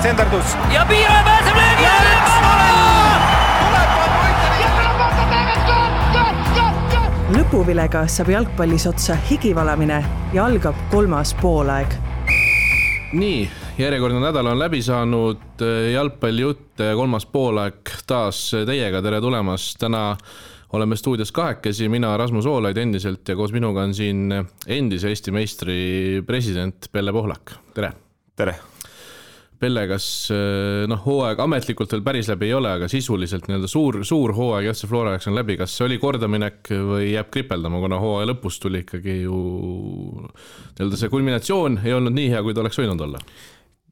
senderdus. Ja Piiraja pääseb löögi alla! Lõpuvilega saab jalgpallis otsa higivalamine ja algab 3. poolaeg. Nii, järjekordne nädal on läbi saanud, jalgpallijutt 3. poolaeg taas teiega, tere tulemast. Täna oleme stuudios kahekesi, mina Rasmus Oolaid endiselt ja koos minuga on siin endise Eesti meistri president Pelle Pohlak. Tere! Tere! Pelle, kas hooaeg ametlikult veel päris läbi ei ole, aga sisuliselt suur hooaeg FC Flora jaoks on läbi. Kas see oli kordaminek või jääb kripeldama, kuna hooaja lõpus tuli ikkagi ju see kulminatsioon ei olnud nii hea, kui ta oleks võinud olla?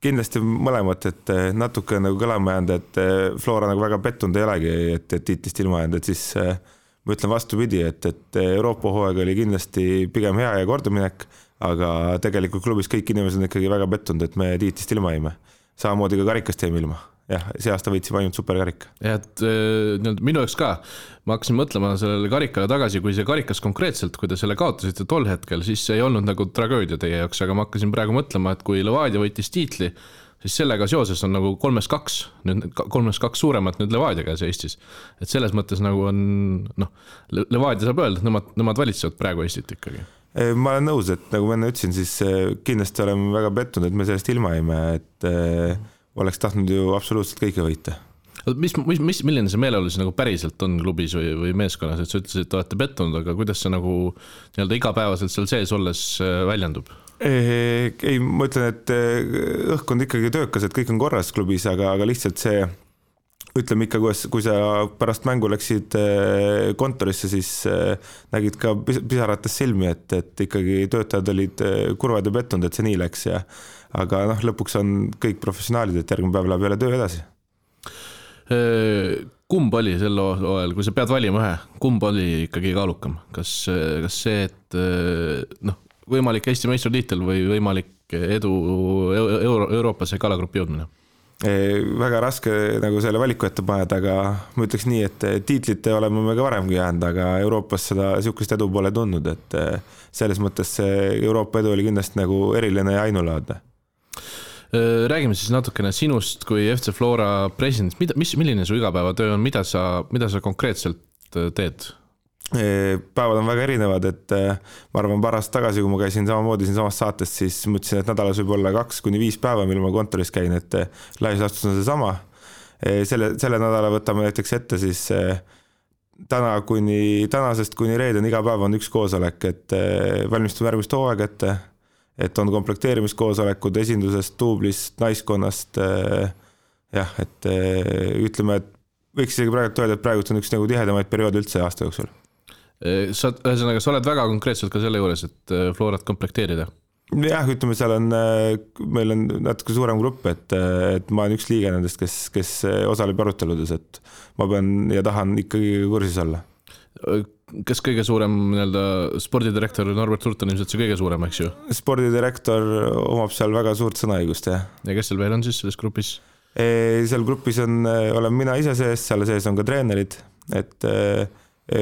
Kindlasti mõlemat, et natuke nagu kõlama jäänud, et Flora nagu väga pettunud ei olegi, et tiitlist ilma jäänud, et siis ma ütlen vastupidi, et Euroopa hooaeg oli kindlasti pigem hea ja kordaminek, aga tegelikult klubis kõik inimesed on ikkagi väga pettunud, et me tiitlist ilma jäime. Samamoodi ka karikast jäime ilma. Jah, see aasta võitsime ainult superkarika. Ja, et minu jaoks ka, ma hakkasin mõtlema sellele karikale tagasi, kui see karikas konkreetselt, kui te selle kaotasite tol hetkel, siis see ei olnud nagu tragöödia teie jaoks, aga ma hakkasin praegu mõtlema, et kui Levadia võitis tiitli, siis sellega seoses on nagu 3-2 suuremat nüüd Levadia käes Eestis. Et selles mõttes nagu on, Levadia saab öelda, et nemad valitsevad praegu Eestit ikkagi. Ma olen nõus, et nagu ma enne ütlesin, siis kindlasti oleme väga pettunud, et me sellest ilma jäime, et oleks tahtnud ju absoluutselt kõike võita. Milline see meeleolu siis nagu päriselt on klubis või meeskonnas, et sa ütlesid, et olete pettunud, aga kuidas see nagu igapäevaselt seal sees olles väljendub? Ei, ma ütlen, et õhk on ikkagi töökas, et kõik on korras klubis, aga lihtsalt see ütleme ikka, kui sa pärast mängu läksid kontorisse, siis nägid ka pisarates silmi, et ikkagi töötajad olid kurvad ja pettunud, et see nii läks. Aga lõpuks on kõik professionaalid, et järgmine päev läheb jälle töö edasi. Kumb oli sel ajal, kui sa pead valima ühe, kumb oli ikkagi kaalukam? Kas see, et võimalik Eesti meistritiitel või võimalik edu Euroopasse kalagrupi jõudmine? Väga raske nagu selle valiku ette paned, aga ma ütleks nii, et tiitlite oleme me ka varemgi jäänud, aga Euroopas seda sihukest edu pole tundnud, et selles mõttes see Euroopa edu oli kindlasti nagu eriline ja ainulaadne. Räägime siis natukene sinust kui FC Flora president. Milline su igapäevatöö on, mida sa konkreetselt teed? Päevad on väga erinevad, et ma arvan paar aastat tagasi, kui ma käisin samamoodi siin samas saates, siis mõtlesin, et nädalas võib olla 2-5 päeva, mil ma kontoris käin, et laias laastus on see sama. Selle nädala võtame näiteks ette siis tänasest kuni reeden iga päev on üks koosolek, et valmistume järgmist hooaeg ette, et on komplekteerimiskoosolekud esindusest, tuublist, naiskonnast, et ütleme, et võiks isegi praegu öelda, et praegu on üks nagu tihedamaid perioode üldse aasta jooksul. Sa oled väga konkreetselt ka selle juures, et Florat komplekteerida? Jah, ütleme, seal on, meil on natuke suurem grupp, et ma olen üks liige nendest, kes osaleb aruteludes, et ma pean ja tahan ikkagi kursis olla. Kas kõige suurem spordidirektor Norbert Hurt on ilmselt see kõige suurem, eks ju? Spordidirektor omab seal väga suurt sõnaõigust, jah. Ja kes seal veel on siis selles grupis? Seal grupis olen mina ise sees, seal sees on ka treenerid, et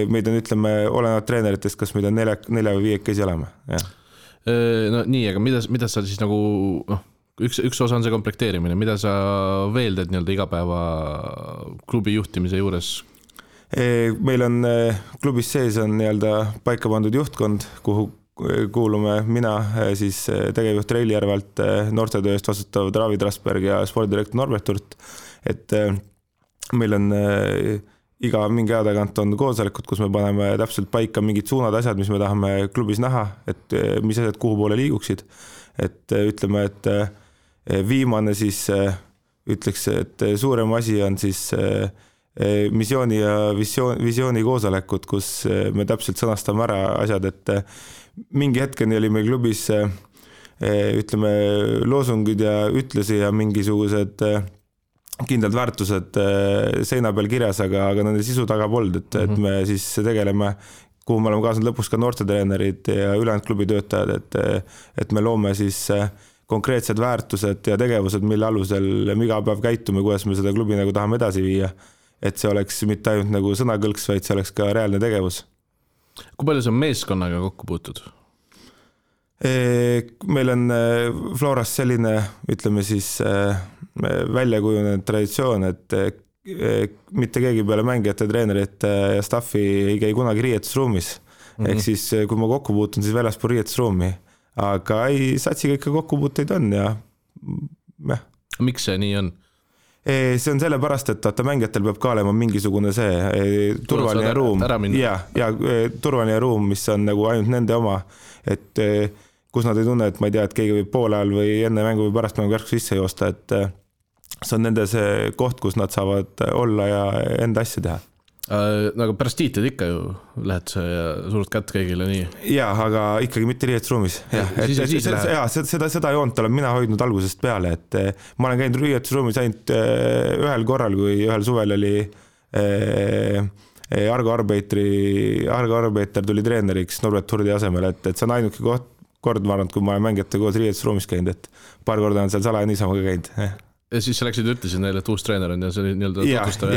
meid on, ütleme, olenevalt treeneritest, kas meid on 4 või 5 käsi olema. No nii, aga mida sa siis nagu, üks osa on see komplekteerimine, mida sa veel teed igapäeva klubi juhtimise juures? Meil on klubis sees on paika pandud juhtkond, kuhu kuulume mina, siis tegevjuht Reili Järvalt, noortetööst vastutav David Rasberg ja spordidirektor Norbert Hurt, et meil on iga mingi aja tagant on koosolekud, kus me paneme täpselt paika mingid suunad asjad, mis me tahame klubis näha, et mis asjad kuhu poole liiguksid, et ütleme, et viimane siis ütleks, et suurem asi on siis missiooni ja visiooni koosolekud, kus me täpselt sõnastame ära asjad, et mingi hetkeni oli meil klubis ütleme loosungid ja ütlusi ja mingisugused kindlad väärtused seina peal kirjas, aga nende sisu taga polnud, et me siis tegeleme, kuhu me oleme kaasanud lõpuks ka noortetreenerid ja ülejäänud klubi töötajad, et me loome siis konkreetsed väärtused ja tegevused, mille alusel me iga päev käitume, kuidas me seda klubi nagu tahame edasi viia, et see oleks mitte ainult nagu sõnakõlks, vaid see oleks ka reaalne tegevus. Kui palju sa meeskonnaga kokku puutud? Meil on Floras selline, ütleme siis väljakujunenud traditsioon, et mitte keegi peale mängijate, treenerite ja staffi ei käi kunagi riietusruumis. Ehk siis, kui ma kokku puutun, siis väljaspool riietusruumi. Aga satsiga ikka kokkupuuteid on ja Miks see nii on? See on sellepärast, et mängijatel peab ka olema mingisugune see turvaline ruum ja turvaline ruum, mis on nagu ainult nende oma, et kus nad ei tunne, et ma ei tea, et keegi võib poole ajal või enne mängu või pärast mängu järsku sisse joosta, et see on nende see koht, kus nad saavad olla ja enda asja teha. Aga pärast tiitlid ikka ju lähed sa ja surud kätt kõigile nii. Jaa, aga ikkagi mitte riietusruumis. Seda joont olen mina hoidnud algusest peale, et ma olen käinud riietusruumis ainult ühel korral, kui ühel suvel oli Argo Arbeiter tuli treeneriks Norbert Hurdi asemel, et see on ainuke kord, ma arvan, kui ma olen mängijate koos riietusruumis käinud, et paar korda on seal salaja niisama ka käinud. Ja siis sa läksid ütlesid neile, et uus treener on ja see oli nii-öelda tutvustav.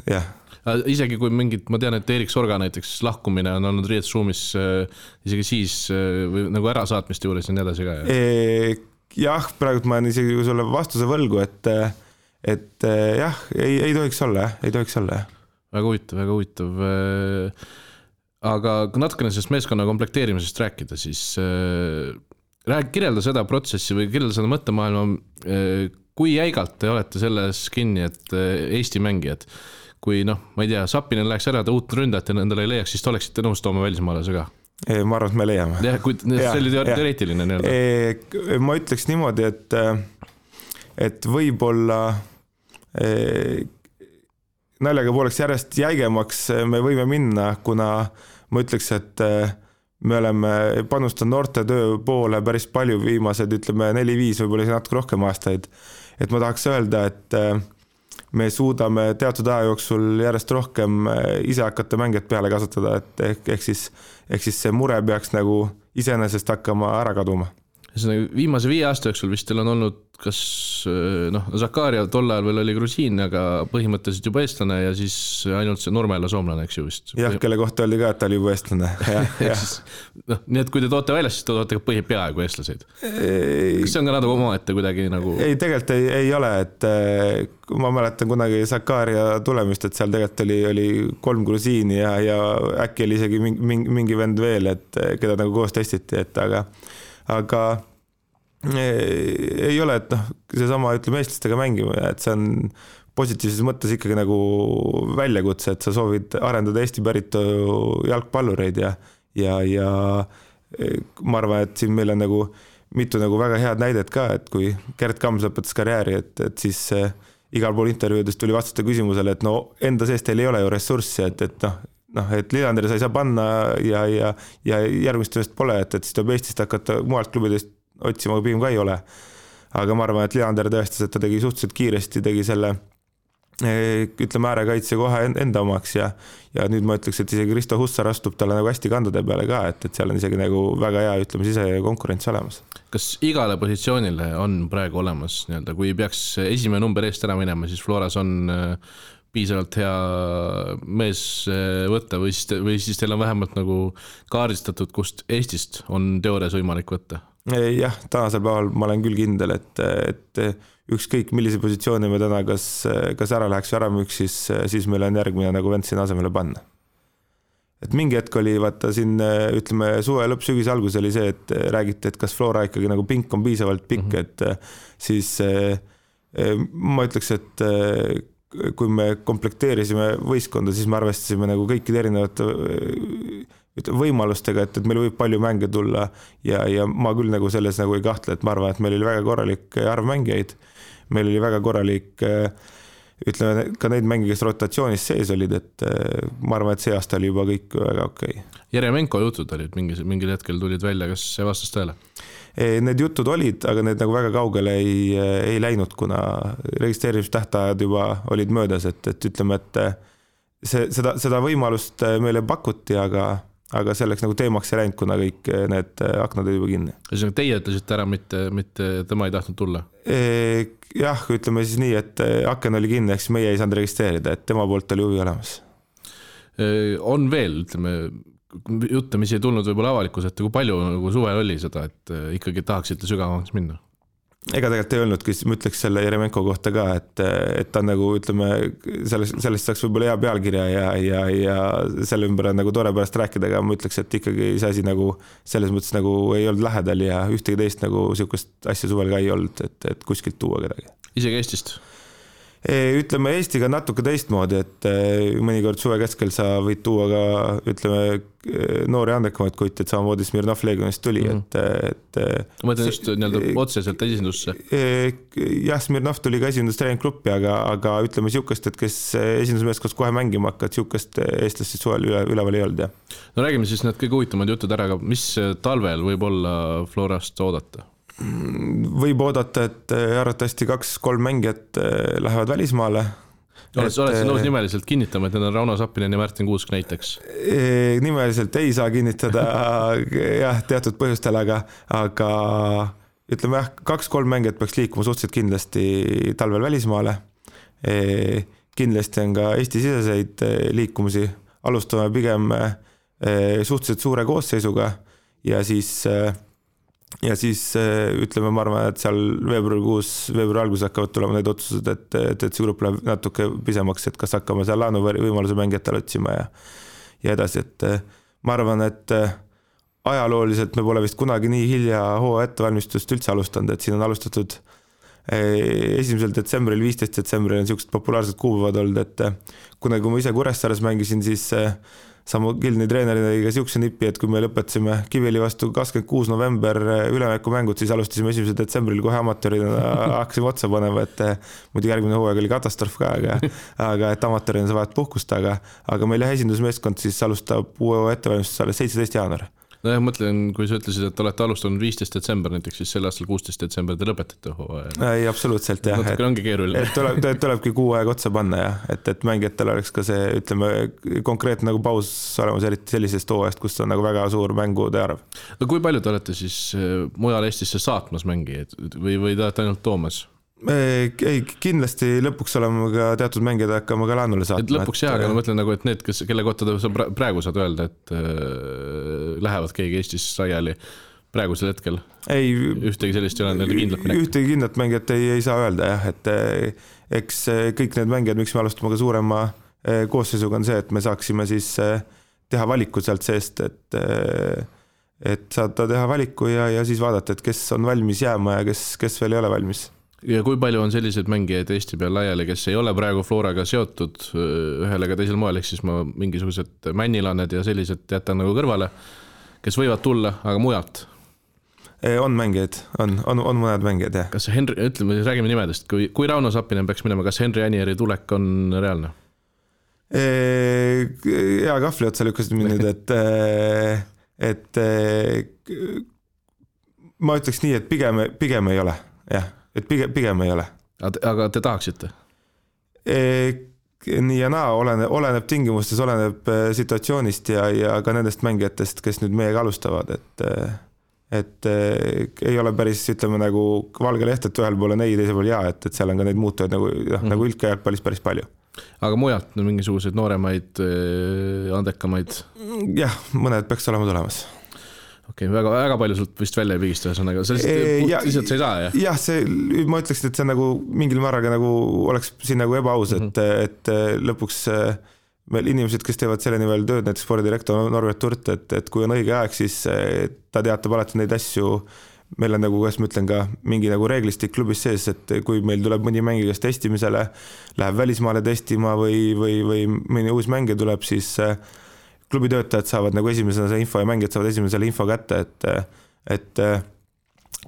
Ja. Isegi kui mingid, ma tean, et Erik Sorga näiteks lahkumine on olnud riietusruumis isegi siis või nagu ärasaatmiste juures ja nii edasi ka. Jah, praegu ma olen isegi sulle vastuse võlgu, et jah, ei tohiks olla. Väga huvitav. Aga kui natukene sellest meeskonna komplekteerimisest rääkida, siis kirjelda seda protsessi või kirjelda seda mõttemaailma, kui jäigalt te olete selles kinni, et Eesti mängijad, kui ma ei tea, Sapinen läheks ära, ta uut ründajat ja endale ei leiaks, siis te oleksite nõus tooma välismaalase ka? Ma arvan, et me leiame. Ja, see oli teoreetiline nii-öelda. Ma ütleks niimoodi, et võib-olla naljaga pooleks järjest jäigemaks me võime minna, kuna ma ütleks, et me oleme panustanud noorte töö poole päris palju viimased, ütleme 4-5, võib-olla natuke rohkem aastaid. Et ma tahaks öelda, et me suudame teatud aja jooksul järjest rohkem ise hakata mängijat peale kasutada, et ehk siis see mure peaks nagu iseenesest hakkama ära kaduma. Viimase 5 aasta jooksul vist teil on olnud kas Zakaria tol ajal veel oli grusiin, aga põhimõtteliselt juba eestlane ja siis ainult see Nurmela soomlane, eks ju vist. Jah, kelle kohta oli ka, et ta oli juba eestlane. Nii et kui te toote välja, siis te toote ka peaaegu eestlaseid. Kas see on ka natuke oma ette kuidagi nagu? Ei, tegelikult ei ole, et ma mäletan kunagi Zakaria tulemist, et seal tegelikult oli 3 grusiini ja äkki oli isegi mingi vend veel, et keda nagu koos testiti, et aga ei ole, et seesama ütleme eestlastega mängima, et see on positiivses mõttes ikkagi nagu väljakutse, et sa soovid arendada Eesti päritu jalgpallureid ja ma arvan, et siin meil on nagu mitu nagu väga head näidet ka, et kui Gert Kams lõpetas karjääri, et siis igal pool intervjuudest tuli vastata küsimusele, et enda sees teil ei ole ju ressurssi, et Lillanderi sa ei saa panna ja järgmist tööst pole, et siis tuleb Eestist hakata mualt klubidest otsima, pigem ka ei ole. Aga ma arvan, et Lillander tõestas, et ta tegi suhteliselt kiiresti, tegi selle ütleme äärekaitse kohe enda omaks ja nüüd ma ütleks, et isegi Risto Hussar astub talle nagu hästi kandade peale ka, et seal on isegi nagu väga hea, ütleme, sise konkurents olemas. Kas igale positsioonile on praegu olemas, nii-öelda, kui peaks esimene number eest ära minema, siis Floras on piisavalt hea mees võtta või siis teil on vähemalt nagu kaardistatud, kust Eestist on teoorias võimalik võtta? Jah, tänasel päeval ma olen küll kindel, et ükskõik millise positsiooni me täna kas ära läheks või ära müüks, siis meil on järgmine nagu vend siin asemele panna. Et mingi hetk oli, vaata siin ütleme suve lõpp, sügise algus oli see, et räägiti, et kas Flora ikkagi nagu pink on piisavalt pikk, et siis ma ütleks, et kui me komplekteerisime võistkonda, siis me arvestasime nagu kõikide erinevate võimalustega, et meil võib palju mänge tulla ja ma küll nagu selles nagu ei kahtle, et ma arvan, et meil oli väga korralik arv mängijaid, meil oli väga korralik ütleme ka neid mänge, kes rotatsioonis sees olid, et ma arvan, et see aasta oli juba kõik väga okei. Jeremenko jutud olid, mingil hetkel tulid välja, kas see vastas tõele? Need jutud olid, aga need nagu väga kaugele ei läinud, kuna registreerimistähtajad juba olid möödas, et ütleme, et seda võimalust meile pakuti, aga selleks nagu teemaks ei läinud, kuna kõik need aknad olid juba kinni. Teie ütlesite ära, mitte tema ei tahtnud tulla? Jah, ütleme siis nii, et aken oli kinni, eks meie ei saanud registreerida, et tema poolt oli huvi olemas. On veel, ütleme, jutte, mis ei tulnud võib-olla avalikus, et kui palju nagu suvel oli seda, et ikkagi tahaksite sügavamaks minna? Ega tegelikult ei öelnudki, ma ütleks selle Jeremenko kohta ka, et ta nagu ütleme, sellest saaks võib-olla hea pealkirja ja selle ümber on nagu tore pärast rääkida, aga ma ütleks, et ikkagi see asi nagu selles mõttes nagu ei olnud lähedal ja ühtegi teist nagu sihukest asja suvel ka ei olnud, et kuskilt tuua kedagi. Isegi Eestist? Ütleme Eestiga natuke teistmoodi, et mõnikord suve keskel sa võid tuua ka ütleme noori andekamaid kuid, et samamoodi Smirnov Legionist tuli, et ma mõtlen just otseselt esindusse. Jah, Smirnov tuli ka esindustreeninggruppi, aga ütleme sihukest, et kes esindusmeeskonnas kohe mängima hakkad, sihukest eestlast suvel üleval ei olnud. No räägime siis need kõige huvitavad jutud ära, aga mis talvel võib olla Florast oodata? Võib oodata, et arvatavasti 2-3 mängijat lähevad välismaale. Oled nõus nimeliselt kinnitama, et need on Rauno Sappinen ja Märtin Kuusk näiteks? Nimeliselt ei saa kinnitada jah, teatud põhjustel, aga ütleme jah, 2-3 mängijat peaks liikuma suhteliselt kindlasti talvel välismaale. Kindlasti on ka Eesti-siseseid liikumisi. Alustame pigem suhteliselt suure koosseisuga ja siis ütleme, ma arvan, et seal veebruari alguses hakkavad tulema need otsused, et see grupp läheb natuke pisemaks, et kas hakkame seal laenuvõimaluse mängijatele otsima ja edasi, et ma arvan, et ajalooliselt me pole vist kunagi nii hilja hooaja ettevalmistust üldse alustanud, et siin on alustatud 1. detsembril, 15. detsembril on siuksed populaarsed kuupäevad olnud, et kui ma ise Kuressaares mängisin, siis Samu Gilni treenerina ka siukse nipi, et kui me lõpetasime Kiviõli vastu 26. november ülemängud, siis alustasime 1. detsembril kohe amatöörina hakkasime otsa panema, et muidu järgmine hooaeg oli katastroof ka, aga et amatöörina sa vahet puhkust, aga meil esindusmeeskond siis alustab uue ettevalmistus alles 17. jaanuar. No jah, mõtlen, kui sa ütlesid, et olete alustanud 15. detsember näiteks, siis sel aastal 16. detsember te lõpetate hooaja. Ei, absoluutselt jah. Natuke ongi keeruline. Et tulebki kuu aeg otsa panna jah, et mängijatel oleks ka see, ütleme, konkreetne nagu paus olemas eriti sellisest hooajast, kus on nagu väga suur mängude arv. No kui palju te olete siis mujal Eestisse saatmas mängijaid või te olete ainult toomas? Ei, kindlasti lõpuks oleme ka teatud mängijad hakkama ka laanule saatma. Lõpuks jah, aga ma mõtlen nagu, et need, kelle kohta sa praegu saad öelda, et lähevad keegi Eestis laiali praegusel hetkel? Ei, ühtegi sellist ei ole kindlat minek? Ühtegi kindlat mängijat ei saa öelda jah, et eks kõik need mängijad, miks me alustame ka suurema koosseisuga on see, et me saaksime siis teha valiku sealt seest, et saada teha valiku ja siis vaadata, et kes on valmis jääma ja kes veel ei ole valmis. Ja kui palju on selliseid mängijaid Eesti peal laiali, kes ei ole praegu Floraga seotud ühel ega teisel moel, ehk siis ma mingisugused männilaned ja sellised jätan nagu kõrvale, kes võivad tulla, aga mujalt? On mängijaid, on mõned mängijad, jah. Kas Henri, ütleme, räägime nimedest, kui Rauno Sappinen peaks minema, kas Henri Anieri tulek on reaalne? Hea kahvli otsa lükkasid mind, et ma ütleks nii, et pigem ei ole, jah. Et pigem ei ole. Aga te tahaksite? Nii ja naa, oleneb tingimustes, oleneb situatsioonist ja ka nendest mängijatest, kes nüüd meiega alustavad, et ei ole päris, ütleme nagu valge leht, et ühel pool on ei, teisel pool jaa, et seal on ka neid muutujaid nagu ülke jalgpallis päris palju. Aga mujalt mingisuguseid nooremaid, andekamaid? Jah, mõned peaks olema tulemas. Okei, väga palju sult vist välja ei pigista, ühesõnaga, lihtsalt sa ei saa, jah? Jah, ma ütleksin, et see nagu mingil määraga nagu oleks siin nagu ebaaus, et lõpuks meil inimesed, kes teevad selle nimel tööd, näiteks spordidirektor Norbert Turt, et kui on õige aeg, siis ta teatab alati neid asju, meil on nagu, kuidas ma ütlen ka, mingi nagu reeglistik klubis sees, et kui meil tuleb mõni mängija, kes testimisele läheb välismaale testima või mõni uus mängija tuleb, siis klubi töötajad saavad nagu esimesena see info ja mängijad saavad esimesele info kätte, et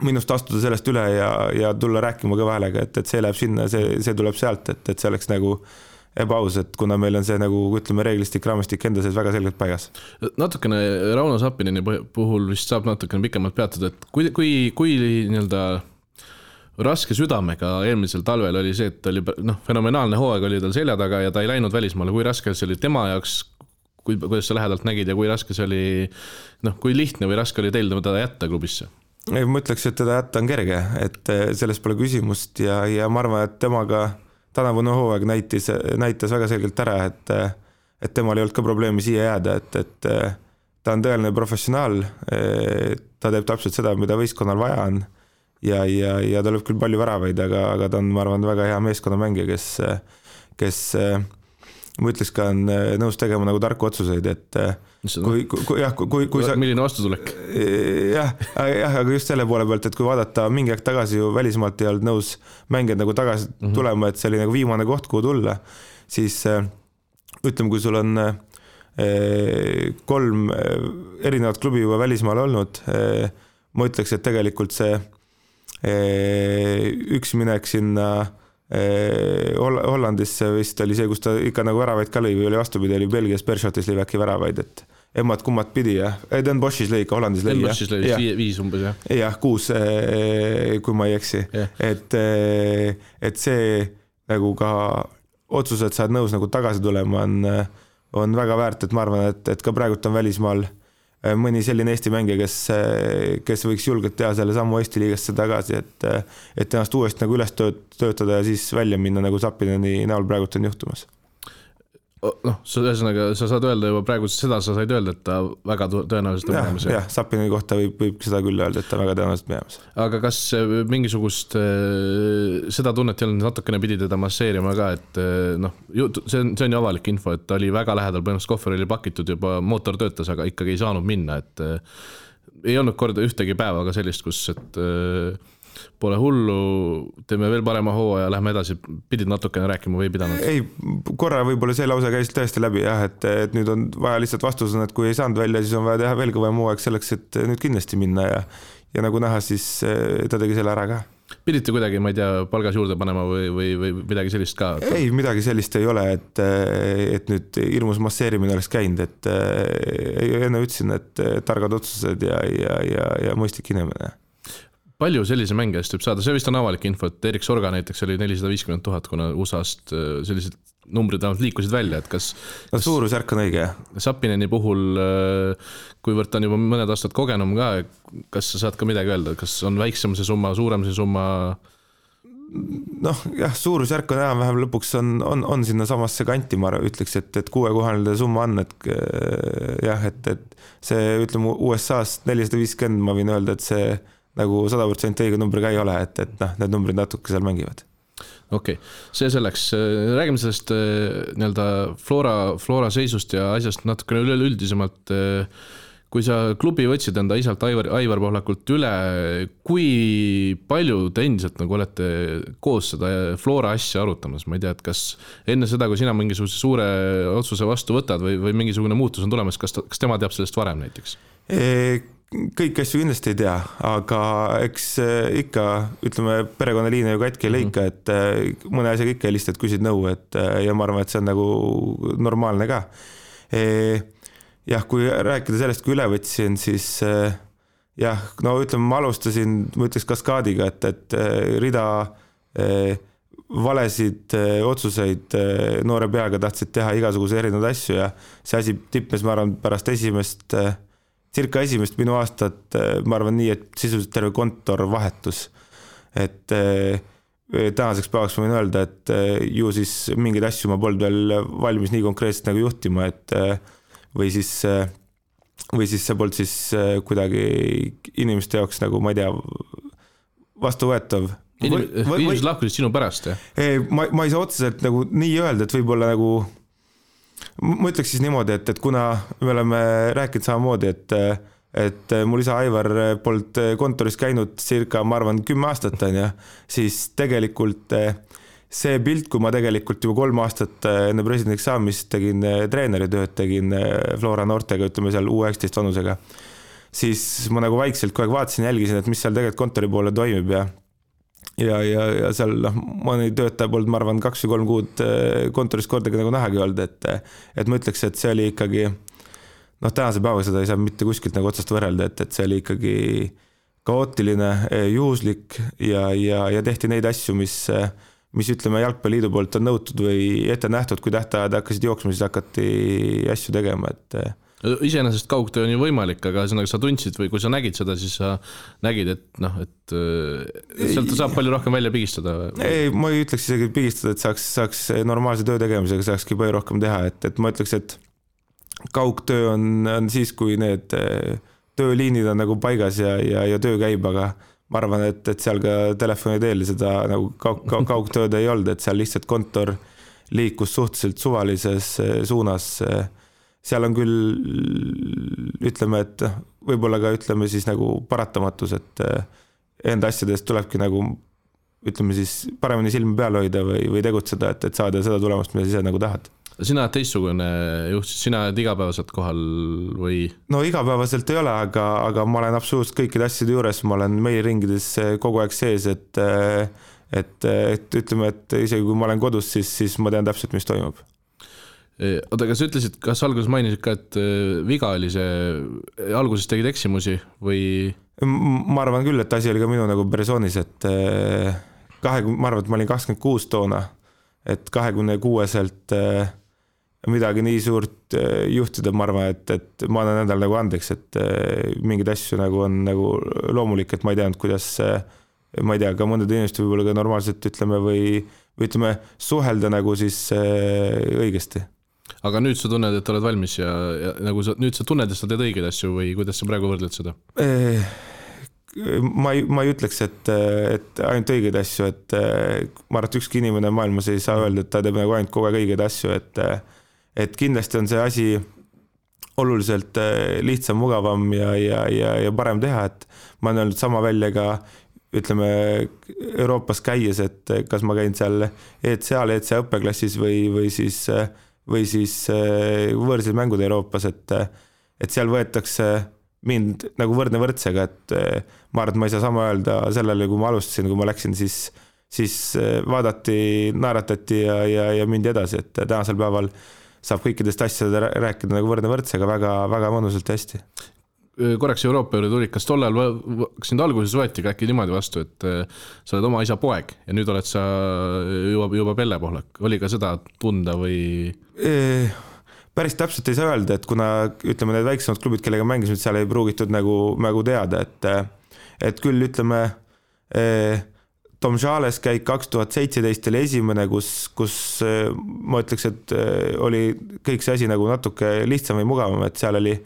minust astuda sellest üle ja tulla rääkima kõva häälega, et see läheb sinna, see tuleb sealt, et see oleks nagu ebaaus, et kuna meil on see nagu, ütleme, reeglistik, raamistik enda sees väga selgelt paigas. Natukene Rauno Sappineni puhul vist saab natukene pikemalt peatuda, et kui nii-öelda raske südamega eelmisel talvel oli see, et oli fenomenaalne hooaeg oli tal selja taga ja ta ei läinud välismaale, kui raske see oli tema jaoks, kuidas sa lähedalt nägid ja kui raske see oli, kui lihtne või raske oli teil teda jätta klubisse? Ma ütleks, et teda jätta on kerge, et sellest pole küsimust ja ma arvan, et temaga tänavune hooaeg näitas väga selgelt ära, et temal ei olnud ka probleemi siia jääda, et ta on tõeline professionaal, ta teeb täpselt seda, mida võistkonnal vaja on ja ta lööb küll palju väravaid, aga ta on, ma arvan, väga hea meeskonnamängija, kes ma ütleks ka on nõus tegema nagu tarku otsuseid, et kui sa... Milline vastutulek? Jah, aga just selle poole pealt, et kui vaadata mingi aeg tagasi ju välismaalt ei olnud nõus mängijad nagu tagasi tulema, et see oli nagu viimane koht, kuhu tulla, siis ütleme, kui sul on 3 erinevat klubi juba välismaal olnud, ma ütleks, et tegelikult see üks minek sinna Hollandisse vist oli see, kus ta ikka nagu väravaid ka lõi või oli vastupidi, oli Belgias Bershotis lõi äkki väravaid, et emmad kummad pidi, jah. Den Boschis lõi ikka, Hollandis lõi, jah. Den Boschis lõi 5 umbes, jah. Jah, 6, kui ma ei eksi. Et see nagu ka otsus, et sa oled nõus nagu tagasi tulema, on väga väärt, et ma arvan, et ka praegult on välismaal mõni selline Eesti mängija, kes võiks julgelt teha selle sammu Eesti liigasse tagasi, et ennast uuesti nagu üles töötada ja siis välja minna nagu Sapineni näol praegult on juhtumas. Noh, ühesõnaga, sa saad öelda juba praegu seda, sa said öelda, et ta väga tõenäoliselt on minemas. Jah, Sapineni kohta võib seda küll öelda, et ta väga tõenäoliselt minemas. Aga kas mingisugust seda tunnet ei olnud, natukene pidi teda masseerima ka, et noh, see on ju avalik info, et ta oli väga lähedal, põhimõtteliselt kohver oli pakitud juba, mootor töötas, aga ikkagi ei saanud minna, et ei olnud korda ühtegi päeva ka sellist, kus et pole hullu, teeme veel parema hooa ja lähme edasi, pidid natukene rääkima või pidanud? Ei, korra võib-olla see lause käis tõesti läbi, jah, et nüüd on vaja lihtsalt vastus on, et kui ei saanud välja, siis on vaja teha veel kõvem hooaeg selleks, et nüüd kindlasti minna ja nagu näha, siis ta tegi selle ära ka. Pidite kuidagi, ma ei tea, palgas juurde panema või midagi sellist ka? Ei, midagi sellist ei ole, et nüüd hirmus masseerimine oleks käinud, et enne ütlesin, et targad otsused ja mõistlik inimene. Palju sellise mänge eest võib saada? See vist on avalik info, et Erik Sorga näiteks oli 450 000, kuna USA-st sellised numbrid liikusid välja, et kas suurusjärk on õige, jah? Sapineni puhul, kuivõrd ta on juba mõned aastad kogenum ka, kas sa saad ka midagi öelda, kas on väiksem see summa, suurem see summa? Noh, jah, suurusjärk on vähem lõpuks on sinna samasse kanti, ma ütleks, et 6-kohaline summa on, et jah, et see, ütleme, USA-st 450, ma võin öelda, et see nagu 100% õige numbri ka ei ole, et need numbrid natuke seal mängivad. Okei, see selleks. Räägime sellest nii-öelda Flora seisust ja asjast natukene üleüldisemalt. Kui sa klubi võtsid enda isalt Aivar Pohlakult üle, kui palju te endiselt nagu olete koos seda Flora asja arutamas? Ma ei tea, et kas enne seda, kui sina mingisuguse suure otsuse vastu võtad või mingisugune muutus on tulemas, kas tema teab sellest varem näiteks? Kõik asju kindlasti ei tea, aga eks ikka, ütleme, perekonnaliine ju katki ei leika, et mõne asjaga ikka helistad, küsid nõu, ja ma arvan, et see on nagu normaalne ka. Jah, kui rääkida sellest, kui üle võtsin, siis jah, no ütleme, ma alustasin, ma ütleks kaskaadiga, et rida valesid otsuseid noore peaga tahtsid teha igasuguse erinevaid asju ja see asi tippes, ma arvan, pärast circa esimest minu aastat, ma arvan nii, et sisuliselt terve kontor vahetus. Et tänaseks päevaks ma võin öelda, et ju siis mingeid asju ma polnud veel valmis nii konkreetselt nagu juhtima, et või siis see polnud siis kuidagi inimeste jaoks nagu, ma ei tea, vastuvõetav. Inimesed lahkusid sinu pärast, jah? Ma ei saa otseselt nagu nii öelda, et võib-olla nagu ma ütleks siis niimoodi, et kuna me oleme rääkinud samamoodi, et mul isa Aivar polnud kontoris käinud circa, ma arvan, 10 aastat on ja siis tegelikult see pilt, kui ma tegelikult juba 3 aastat enne presidendiks saamist tegin treeneritööd, tegin Flora noortega, ütleme seal U19 vanusega, siis ma nagu vaikselt kogu aeg vaatasin, jälgisin, et mis seal tegelikult kontori poole toimib ja seal mõni töötaja polnud, ma arvan, 2 või 3 kuud kontoris kordagi nagu nähagi olnud, et ma ütleks, et see oli ikkagi, tänase päeva seda ei saa mitte kuskilt nagu otsast võrrelda, et see oli ikkagi kaootiline, juhuslik ja tehti neid asju, mis ütleme Jalgpalliliidu poolt on nõutud või ette nähtud, kui tähtajad hakkasid jooksma, siis hakati asju tegema, et iseenesest kaugtöö on ju võimalik, aga sa tundsid või kui sa nägid seda, siis sa nägid, et sealt saab palju rohkem välja pigistada. Ei, ma ei ütleks isegi pigistada, et saaks normaalse töö tegemisega saakski palju rohkem teha, et ma ütleks, et kaugtöö on siis, kui need tööliinid on nagu paigas ja töö käib, aga ma arvan, et seal ka telefoni teel seda nagu kaugtööd ei olnud, et seal lihtsalt kontor liikus suhteliselt suvalises suunas. Seal on küll, ütleme, et võib-olla ka ütleme siis nagu paratamatus, et enda asjadest tulebki nagu, ütleme siis paremini silmi peal hoida või tegutseda, et saada seda tulemust, mida sa ise nagu tahad. Sina oled teistsugune juht, sina oled igapäevaselt kohal või? No igapäevaselt ei ole, aga ma olen absoluutselt kõikide asjade juures, ma olen meiliringides kogu aeg sees, et ütleme, et isegi kui ma olen kodus, siis ma tean täpselt, mis toimub. Oota, kas ütlesid, kas alguses mainisid ka, et viga oli see, alguses tegid eksimusi või? Ma arvan küll, et asi oli ka minu nagu persoonis, et ma arvan, et ma olin 26 toona, et 26-selt midagi nii suurt juhtida, ma arvan, et ma annan endal nagu andeks, et mingid asju nagu on nagu loomulik, et ma ei teadnud, kuidas, ma ei tea, ka mõndade inimesed võib-olla ka normaalselt ütleme või ütleme, suhelda nagu siis õigesti. Aga nüüd sa tunned, et oled valmis ja nagu nüüd sa tunned, et sa teed õigeid asju või kuidas sa praegu võrdled seda? Ma ei ütleks, et ainult õigeid asju, et ma arvan, et ükski inimene maailmas ei saa öelda, et ta teeb nagu ainult kogu aeg õigeid asju, et kindlasti on see asi oluliselt lihtsam, mugavam ja parem teha, et ma olen öelnud sama välja ka ütleme Euroopas käies, et kas ma käin seal ECA õppeklassis või siis võõrsil mängud Euroopas, et seal võetakse mind nagu võrdne võrdsega, et ma arvan, et ma ei saa sama öelda sellele, kui ma alustasin, kui ma läksin, siis vaadati, naeratati ja mindi edasi, et tänasel päeval saab kõikidest asjade rääkida nagu võrdne võrdsega väga mõnusalt ja hästi. Korraks Euroopa juurde tuli, kas tollel sind alguses võeti ka äkki niimoodi vastu, et sa oled oma isa poeg ja nüüd oled sa juba Pelle Pohlak, oli ka seda tunda või? Päris täpselt ei saa öelda, et kuna ütleme need väiksemad klubid, kellega mängisime, seal ei pruugitud nagu teada, et küll ütleme Tom Jales käik 2017 oli esimene, kus ma ütleks, et oli kõik see asi nagu natuke lihtsam või mugavam, et seal oli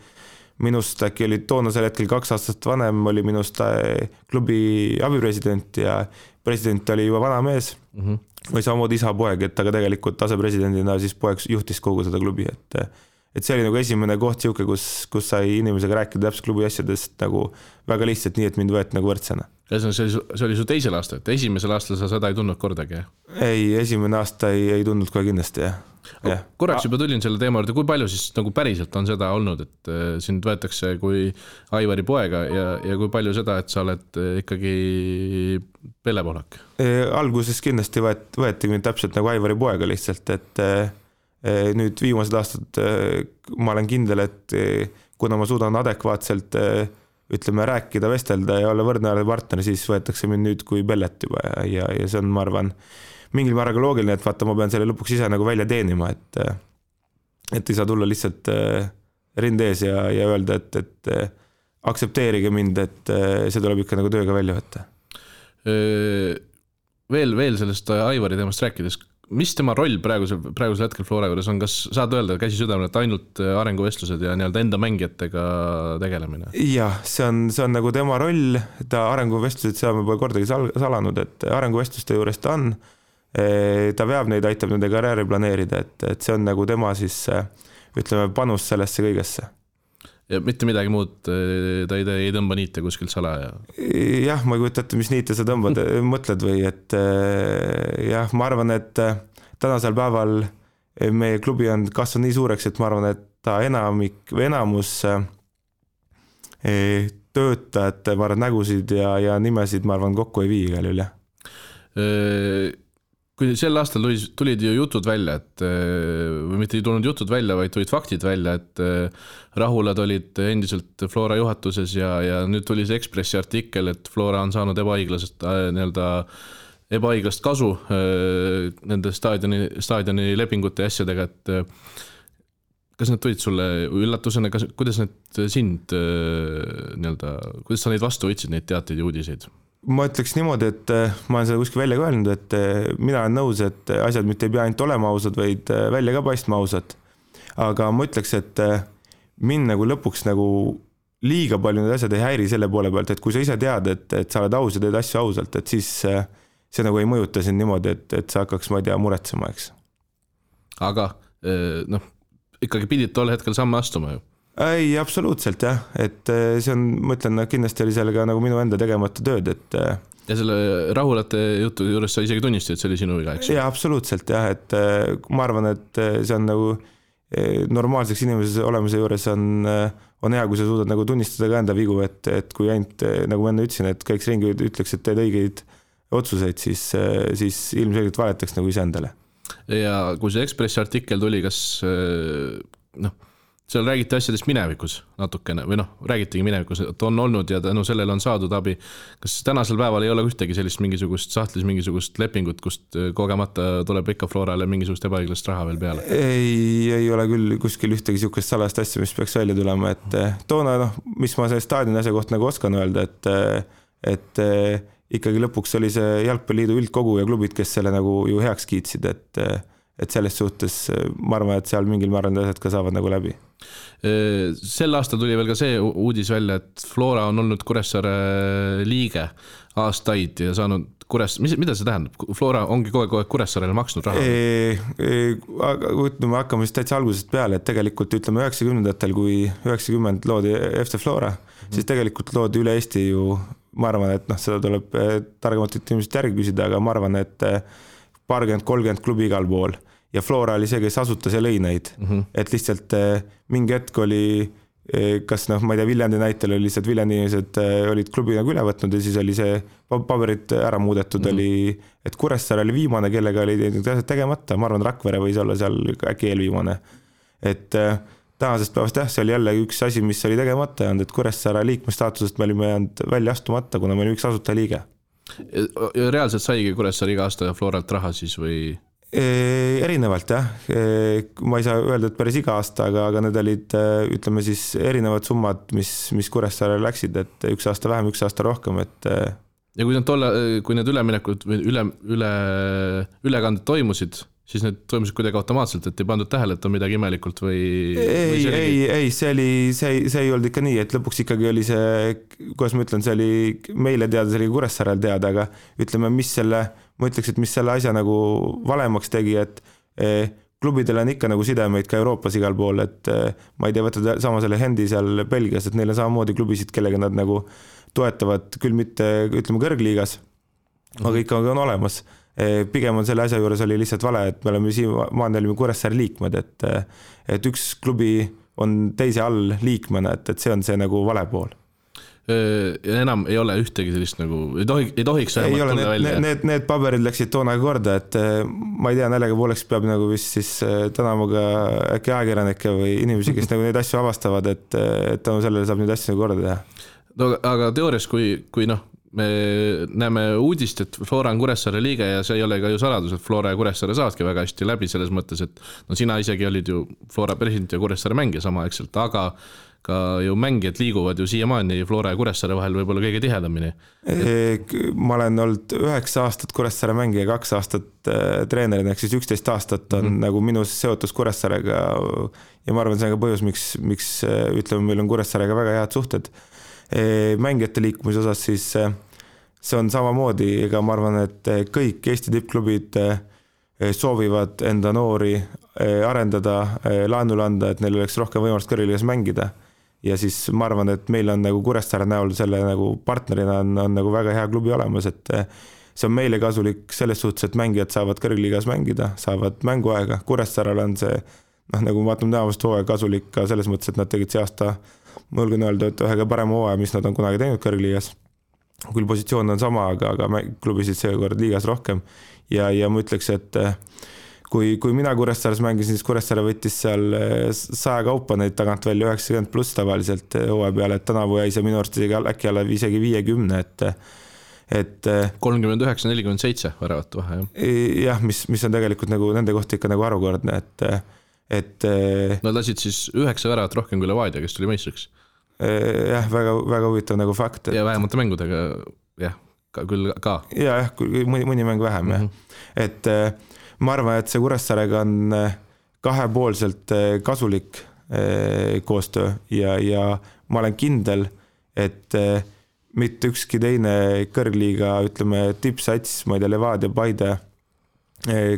minust äkki oli toonasel hetkel 2 aastat vanem, oli minust klubi abipresident ja president oli juba vana mees või samamoodi isa poeg, et aga tegelikult asepresidendina siis poeg juhtis kogu seda klubi, et see oli nagu esimene koht siuke, kus sai inimesega rääkida täpselt klubi asjadest nagu väga lihtsalt nii, et mind võeti nagu võrdsena. See oli su teisel aastal, et esimesel aastal sa seda ei tundnud kordagi? Ei, esimene aasta ei tundnud kohe kindlasti, jah. Korraks juba tulin selle teema juurde, kui palju siis nagu päriselt on seda olnud, et sind võetakse kui Aivari poega ja kui palju seda, et sa oled ikkagi Pelle Pohlak? Alguses kindlasti võeti mind täpselt nagu Aivari poega lihtsalt, et nüüd viimased aastad ma olen kindel, et kuna ma suudan adekvaatselt ütleme rääkida, vestelda ja olla võrdne partner, siis võetakse mind nüüd kui Pellet juba ja see on, ma arvan, mingil määral loogiline, et vaata, ma pean selle lõpuks ise nagu välja teenima, et ei saa tulla lihtsalt rinde ees ja öelda, et aktsepteerige mind, et see tuleb ikka nagu tööga välja võtta. Veel sellest Aivari teemast rääkides, mis tema roll praegusel hetkel Flora juures on, kas saad öelda käsi südamel, et ainult arenguvestlused ja nii-öelda enda mängijatega tegelemine? Jah, see on nagu tema roll, ta arenguvestlused, seda me pole kordagi salanud, et arenguvestluste juures ta on, ta veab neid, aitab nende karjääri planeerida, et see on nagu tema siis, ütleme, panus sellesse kõigesse. Ja mitte midagi muud, ta ei tõmba niite kuskilt salaja? Jah, ma ei kujuta ette, mis niite sa tõmbad, mõtled või, et jah, ma arvan, et tänasel päeval meie klubi on kasvanud nii suureks, et ma arvan, et ta enamus töötajate, ma arvan, nägusid ja nimesid, ma arvan, kokku ei vii igal üle. Kui sel aastal tulid ju jutud välja, et või mitte ei tulnud jutud välja, vaid tulid faktid välja, et Rahulad olid endiselt Flora juhatuses ja nüüd tuli see Ekspressi artikkel, et Flora on saanud ebaõiglast kasu nende staadioni lepingute ja asjadega, et kas need tulid sulle üllatusena, kuidas need sind kuidas sa neid vastu võtsid, neid teateid ja uudiseid? Ma ütleks niimoodi, et ma olen seda kuskil välja ka öelnud, et mina olen nõus, et asjad mitte ei pea ainult olema ausad, vaid välja ka paistma ausad. aga ma ütleks, et mind nagu lõpuks nagu liiga palju need asjad ei häiri selle poole pealt, et kui sa ise tead, et sa oled aus ja teed asju ausalt, et siis see nagu ei mõjuta sind niimoodi, et sa hakkaks, ma ei tea, muretsema, eks. Aga ikkagi pidid tol hetkel samme astuma ju? Ei, absoluutselt jah, et see on, ma ütlen, kindlasti oli sellega nagu minu enda tegemata tööd, et ja selle rahulate jutu juures sa isegi tunnistasid, et see oli sinu viga, eks? Jaa, absoluutselt jah, et ma arvan, et see on nagu normaalseks inimese olemise juures on hea, kui sa suudad nagu tunnistada ka enda vigu, et kui ainult, nagu ma enne ütlesin, et kõik ringi ütleks, et teed õigeid otsuseid, siis ilmselgelt valetaks nagu iseendale. Ja kui see Ekspressi artikkel tuli, kas seal räägiti asjadest minevikus natukene või räägitigi minevikus, et on olnud ja tänu sellele on saadud abi. Kas tänasel päeval ei ole ühtegi sellist mingisugust sahtlis mingisugust lepingut, kust kogemata tuleb ikka Florale mingisugust ebaõiglast raha veel peale? Ei ole küll kuskil ühtegi sihukest salast asja, mis peaks välja tulema, et toona, mis ma selle staadioni asja kohta nagu oskan öelda, et ikkagi lõpuks oli see Jalgpalliliidu üldkogu ja klubid, kes selle nagu ju heaks kiitsid, et selles suhtes ma arvan, et seal mingil määral asjad ka saavad nagu läbi. Sel aastal tuli veel ka see uudis välja, et Flora on olnud Kuressaare liige aastaid ja saanud mida see tähendab? Flora ongi kogu aeg Kuressaarele maksnud raha? Me hakkame siis täitsa algusest peale, et tegelikult ütleme 90-ndatel, kui 90 loodi FC Flora, siis tegelikult loodi üle Eesti ju, ma arvan, et seda tuleb targemalt inimesed järgi küsida, aga ma arvan, et 30 klubi igal pool ja Flora oli see, kes asutas ja lõi neid, et lihtsalt mingi hetk oli, kas ma ei tea, Viljandi näitel oli lihtsalt Viljandi inimesed olid klubi nagu üle võtnud ja siis oli see paberid ära muudetud, oli, et Kuressaare oli viimane, kellega oli asjad tegemata, ma arvan, Rakvere võis olla seal äkki eelviimane, et tänasest päevast see oli jälle üks asi, mis oli tegemata ja et Kuressaare liikmestaatusest me olime jäänud välja astumata, kuna me olime üks asutajaliige. Reaalselt saigi Kuressaare iga aasta Floralt raha siis või? Erinevalt jah, ma ei saa öelda, et päris iga aasta, aga need olid, ütleme siis erinevad summad, mis Kuressaare läksid, et üks aasta vähem, üks aasta rohkem, et ja kui need üleminekud või ülekanded toimusid, siis need toimusid kuidagi automaatselt, et ei pandud tähele, et on midagi imelikult või? Ei, see ei olnud ikka nii, et lõpuks ikkagi oli see, kuidas ma ütlen, see oli meile teada, see oli Kuressaarel teada, aga ütleme, ma ütleks, et mis selle asja nagu valemaks tegi, et klubidel on ikka nagu sidemeid ka Euroopas igal pool, et ma ei tea, võtta sama selle Hendi seal Belgias, et neil on samamoodi klubisid, kellega nad nagu toetavad, küll mitte, ütleme, kõrgliigas, aga ikka on olemas. Pigem on selle asja juures oli lihtsalt vale, et me olime Kuressaare liikmed, et üks klubi on teise all liikmena, et see on see nagu vale pool. Ja enam ei ole ühtegi sellist nagu, ei tohiks tulla välja. Need paberid läksid toona korda, et ma ei tea, näljaga pooleks peab nagu vist siis tänama ka äkki ajakirjanikke või inimesi, kes nagu neid asju avastavad, et sellele saab neid asju korda teha. No, aga teoorias, kui me näeme uudist, et Flora on Kuressaare liige ja see ei ole ka ju saladus, et Flora ja Kuressaare saadki väga hästi läbi selles mõttes, et sina isegi olid ju Flora president ja Kuressaare mängija samaaegselt, aga ka ju mängijad liiguvad ju siiamaani Flora ja Kuressaare vahel võib-olla kõige tihedamini. Ma olen olnud 9 aastat Kuressaare mängija, 2 aastat treenerina, ehk siis 11 aastat on nagu minus seotus Kuressaarega ja ma arvan, see on ka põhjus, miks ütleme, meil on Kuressaarega väga head suhted. Mängijate liikumise osas siis see on samamoodi, ega ma arvan, et kõik Eesti tippklubid soovivad enda noori arendada, laenule anda, et neil oleks rohkem võimalust kõrgliigas mängida ja siis ma arvan, et meil on nagu Kuressaare näol selle nagu partnerina on nagu väga hea klubi olemas, et see on meile kasulik selles suhtes, et mängijad saavad kõrgliigas mängida, saavad mänguaega, Kuressaarel on see nagu ma vaatame tänavast hooaja kasulik ka selles mõttes, et nad tegid see aasta ma julgen öelda, et ühega parema hooaja, mis nad on kunagi teinud kõrgliigas. Küll positsioon on sama, aga klubisid seekord liigas rohkem. Ja ma ütleks, et kui mina Kuressaares mängisin, siis Kuressaare võttis seal 100 kaupa neid tagant välja 90 pluss tavaliselt hooaja peale, et tänavu jäi see minu arust äkki alla isegi 50, et 39-47 väravat vahe, jah, mis on tegelikult nagu nende kohta ikka nagu harukordne, et nad lasid siis 9 väravat rohkem kui Levadia, kes tuli meistriks. Jah, väga huvitav nagu fakt. Ja vähemate mängudega, jah, küll ka. Jah, mõni mäng vähem, jah. Et ma arvan, et see Kuressaarega on kahepoolselt kasulik koostöö ja ma olen kindel, et mitte ükski teine kõrgliiga, ütleme, tippsats, ma ei tea, Levadia, Paide,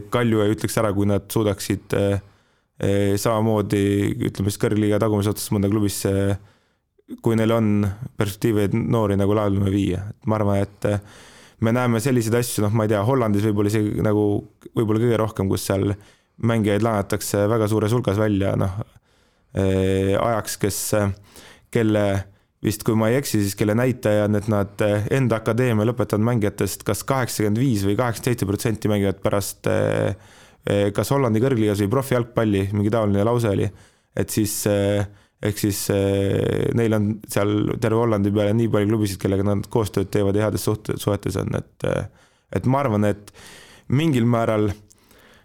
Kalju ei ütleks ära, kui nad suudaksid samamoodi, ütleme, kõrgliiga tagumise otsast mõnda klubisse, kui neil on perspektiiveid noori nagu laadlume viia. Ma arvan, et me näeme selliseid asju, ma ei tea, Hollandis võib-olla isegi nagu võib-olla kõige rohkem, kus seal mängijaid laenatakse väga suures hulgas välja, ajaks, kelle vist, kui ma ei eksi, siis kelle näitaja on, et nad enda akadeemia lõpetanud mängijatest kas 85 või 87% mängivad pärast kas Hollandi kõrgliigas või profijalgpalli, mingi taoline lause oli, et siis ehk siis neil on seal terve Hollandi peale nii palju klubisid, kellega nad koostööd teevad ja heades suhetes on, et ma arvan, et mingil määral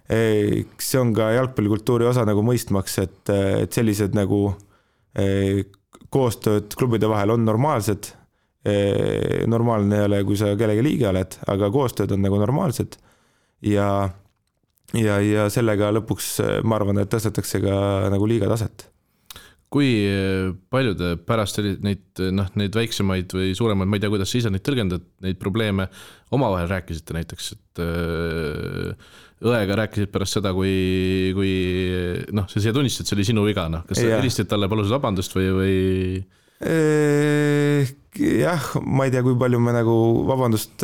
see on ka jalgpallikultuuri osa nagu mõistmaks, et sellised nagu koostööd klubide vahel on normaalsed, normaalne ei ole, kui sa kellegi liige oled, aga koostööd on nagu normaalsed ja sellega lõpuks ma arvan, et tõstetakse ka nagu liiga taset. Kui palju te pärast neid väiksemaid või suuremaid, ma ei tea, kuidas sa ise neid tõlgendad, neid probleeme omavahel rääkisite näiteks, et õega rääkisid pärast seda, kui sa siia tunnistad, see oli sinu viga, kas sa helistasid talle, palusid vabandust või? Jah, ma ei tea, kui palju me nagu vabandust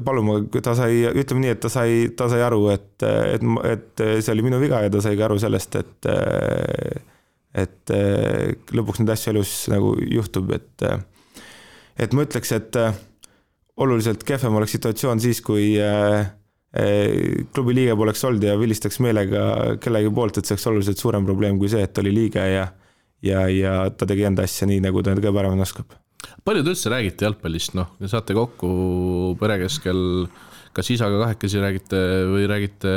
palume, ta sai, ütleme nii, et ta sai aru, et see oli minu viga ja ta sai ka aru sellest, et lõpuks neid asju elus nagu juhtub, et ma ütleks, et oluliselt kehvem oleks situatsioon siis, kui klubi liige poleks olnud ja vilistaks meelega kellegi poolt, et see oleks oluliselt suurem probleem kui see, et oli liige ja ta tegi enda asja nii, nagu ta kõige paremini oskab. Palju te üldse räägite jalgpallist, saate kokku pere keskel, kas isaga kahekesi räägite või räägite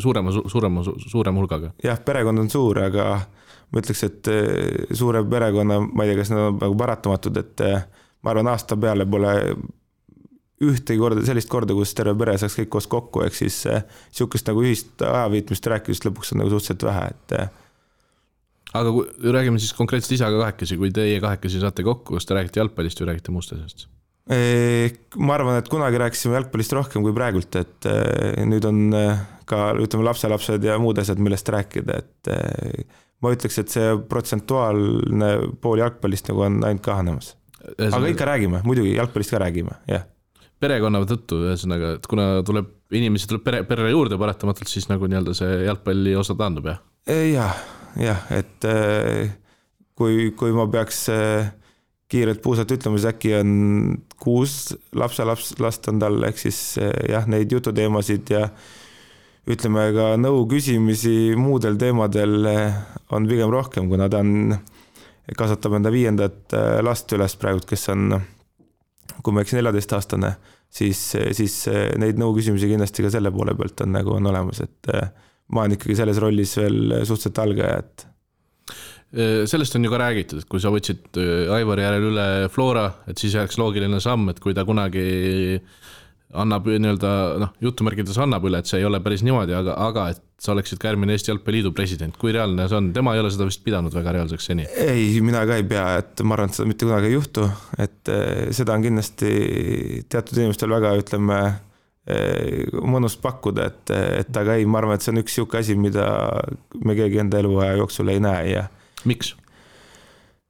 suurema hulgaga? Jah, perekond on suur, aga ma ütleks, et suure perekonna, ma ei tea, kas nad on nagu paratamatud, et ma arvan, aasta peale pole ühtegi korda, sellist korda, kus terve pere saaks kõik koos kokku, ehk siis sihukest nagu ühist ajaviitmist rääkimist lõpuks on nagu suhteliselt vähe, Aga kui räägime siis konkreetselt isaga kahekesi, kui teie kahekesi saate kokku, kas te räägite jalgpallist või räägite muust asjast? Ma arvan, et kunagi rääkisime jalgpallist rohkem kui praegult, et nüüd on ka, ütleme, lapselapsed ja muud asjad, millest rääkida, et ma ütleks, et see protsentuaalne pool jalgpallist nagu on ainult kahanemas. Aga ikka räägime, muidugi jalgpallist ka räägime, jah. Perekonna tõttu, ühesõnaga, et kuna inimesi tuleb perre juurde paratamatult, siis nagu nii-öelda see jalgpalli osa taandub, jah? Jah, et kui ma peaks kiirelt puusalt ütlema, siis äkki on 6 lapselast on tal, ehk siis jah, neid jututeemasid ja ütleme ka nõu küsimisi muudel teemadel on pigem rohkem, kuna ta kasvatab enda 5. last üles praegu, kes on, kui ma eksin 14-aastane, siis neid nõu küsimusi kindlasti ka selle poole pealt on nagu on olemas, et ma olen ikkagi selles rollis veel suhteliselt algaja, et sellest on ju ka räägitud, et kui sa võtsid Aivari järel üle Flora, et siis jääks loogiline samm, et kui ta kunagi annab nii-öelda, jutumärkides annab üle, et see ei ole päris niimoodi, aga et sa oleksid ka järgmine Eesti Jalgpalliliidu president, kui reaalne see on? Tema ei ole seda vist pidanud väga reaalseks seni. Ei, mina ka ei pea, et ma arvan, et seda mitte kunagi ei juhtu, et seda on kindlasti teatud inimestel väga, ütleme, mõnus pakkuda, et aga ei, ma arvan, et see on üks siuke asi, mida me keegi enda eluaja jooksul ei näe ja miks?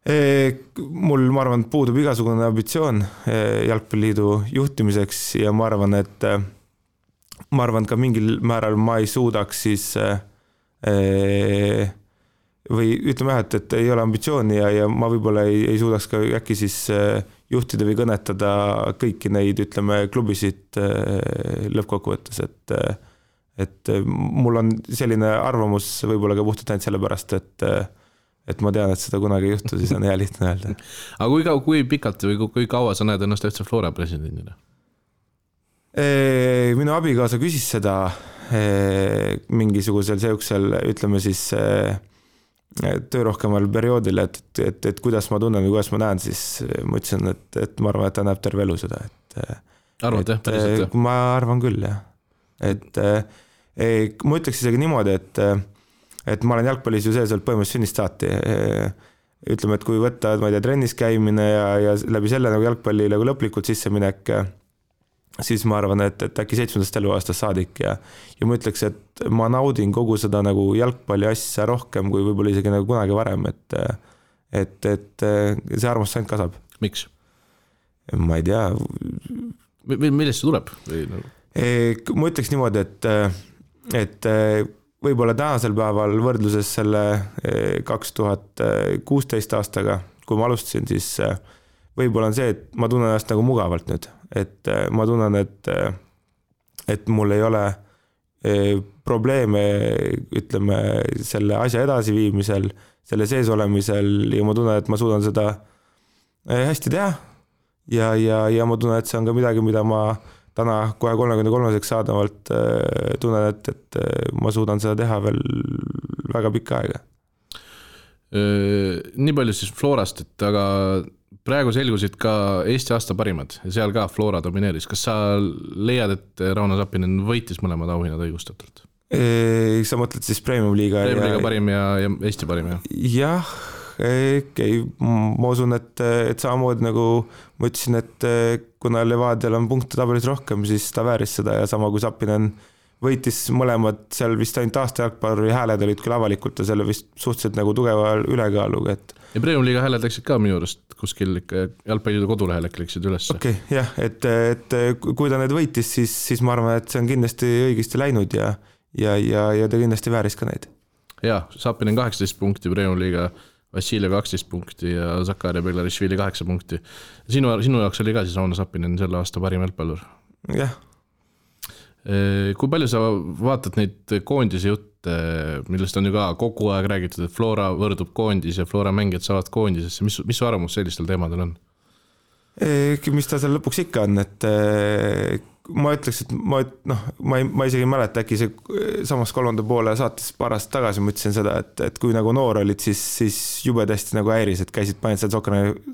Mul, ma arvan, puudub igasugune ambitsioon Jalgpalliliidu juhtimiseks ja ma arvan, et ka mingil määral ma ei suudaks siis või ütleme jah, et ei ole ambitsiooni ja ma võib-olla ei suudaks ka äkki siis juhtida või kõnetada kõiki neid, ütleme, klubisid lõppkokkuvõttes, et mul on selline arvamus võib-olla ka puhtalt ainult sellepärast, et ma tean, et seda kunagi ei juhtu, siis on hea lihtne öelda. Aga kui pikalt või kui kaua sa näed ennast FC Flora presidendina? Minu abikaasa küsis seda mingisugusel seoksel, ütleme siis töörohkemal perioodil, et kuidas ma tunnen või kuidas ma näen, siis ma ütlesin, et ma arvan, et ta näeb terve elu seda. Arvad, jah? Päriselt, jah? Ma arvan küll, jah. Ma ütleks isegi niimoodi, et ma olen jalgpallis ju sees olnud põhimõtteliselt sünnist saati. Ütleme, et kui võtta, ma ei tea, trennis käimine ja läbi selle nagu jalgpalli nagu lõplikult sisse minek, siis ma arvan, et äkki 7. eluaastast saadik ja ma ütleks, et ma naudin kogu seda nagu jalgpalli asja rohkem kui võib-olla isegi nagu kunagi varem, et see armastus ainult kasvab. Miks? Ma ei tea. Millest see tuleb? Ma ütleks niimoodi, et võib-olla tänasel päeval võrdluses selle 2016 aastaga, kui ma alustasin, siis võib-olla on see, et ma tunnen ennast nagu mugavalt nüüd. Et ma tunnen, et mul ei ole probleeme, ütleme, selle asja edasiviimisel, selle sees olemisel ja ma tunnen, et ma suudan seda hästi teha ja ma tunnen, et see on ka midagi, mida ma täna kohe 33-seks saadavalt tunnen, et ma suudan seda teha veel väga pikka aega. Nii palju siis Florast, et aga praegu selgusid ka Eesti aasta parimad ja seal ka Flora domineeris. Kas sa leiad, et Rauno Sappinen võitis mõlemad auhinnad õigustatult? Sa mõtled siis Premium Liiga parim ja Eesti parim, jah? Jah, ma usun, et samamoodi nagu ma ütlesin, et kuna Levadial on punkte tabelis rohkem, siis ta vääris seda ja sama kui Sappinen võitis mõlemad, seal vist ainult aasta jalgpalluri hääled olid küll avalikult ja selle vist suhteliselt nagu tugeva ülekaaluga. Ja Premium Liiga hääled läksid ka minu juurest kuskil jalgpallidu kodulehel läksid üles. Okei, jah, et kui ta need võitis, siis ma arvan, et see on kindlasti õigesti läinud ja ta kindlasti vääris ka neid. Ja, Sappinen 18 punkti, Premium Liiga Vassiljev 12 punkti ja Zakaria Beglarishvili 8 punkti. Sinu jaoks oli ka siis Rauno Sappinen selle aasta parim jalgpallur? Jah. Kui palju sa vaatad neid koondise jutte, millest on ju ka kogu aeg räägitud, et Flora võrdub koondis ja Flora mängijad saavad koondisesse, mis su arvamus sellistel teemadel on? Mis ta seal lõpuks ikka on, et ma ütleks, et ma isegi ei mäleta, äkki see samas 3. poole saates paar aastat tagasi ma ütlesin seda, et kui nagu noor olid, siis jube tõesti nagu häiris, et käisid panid seal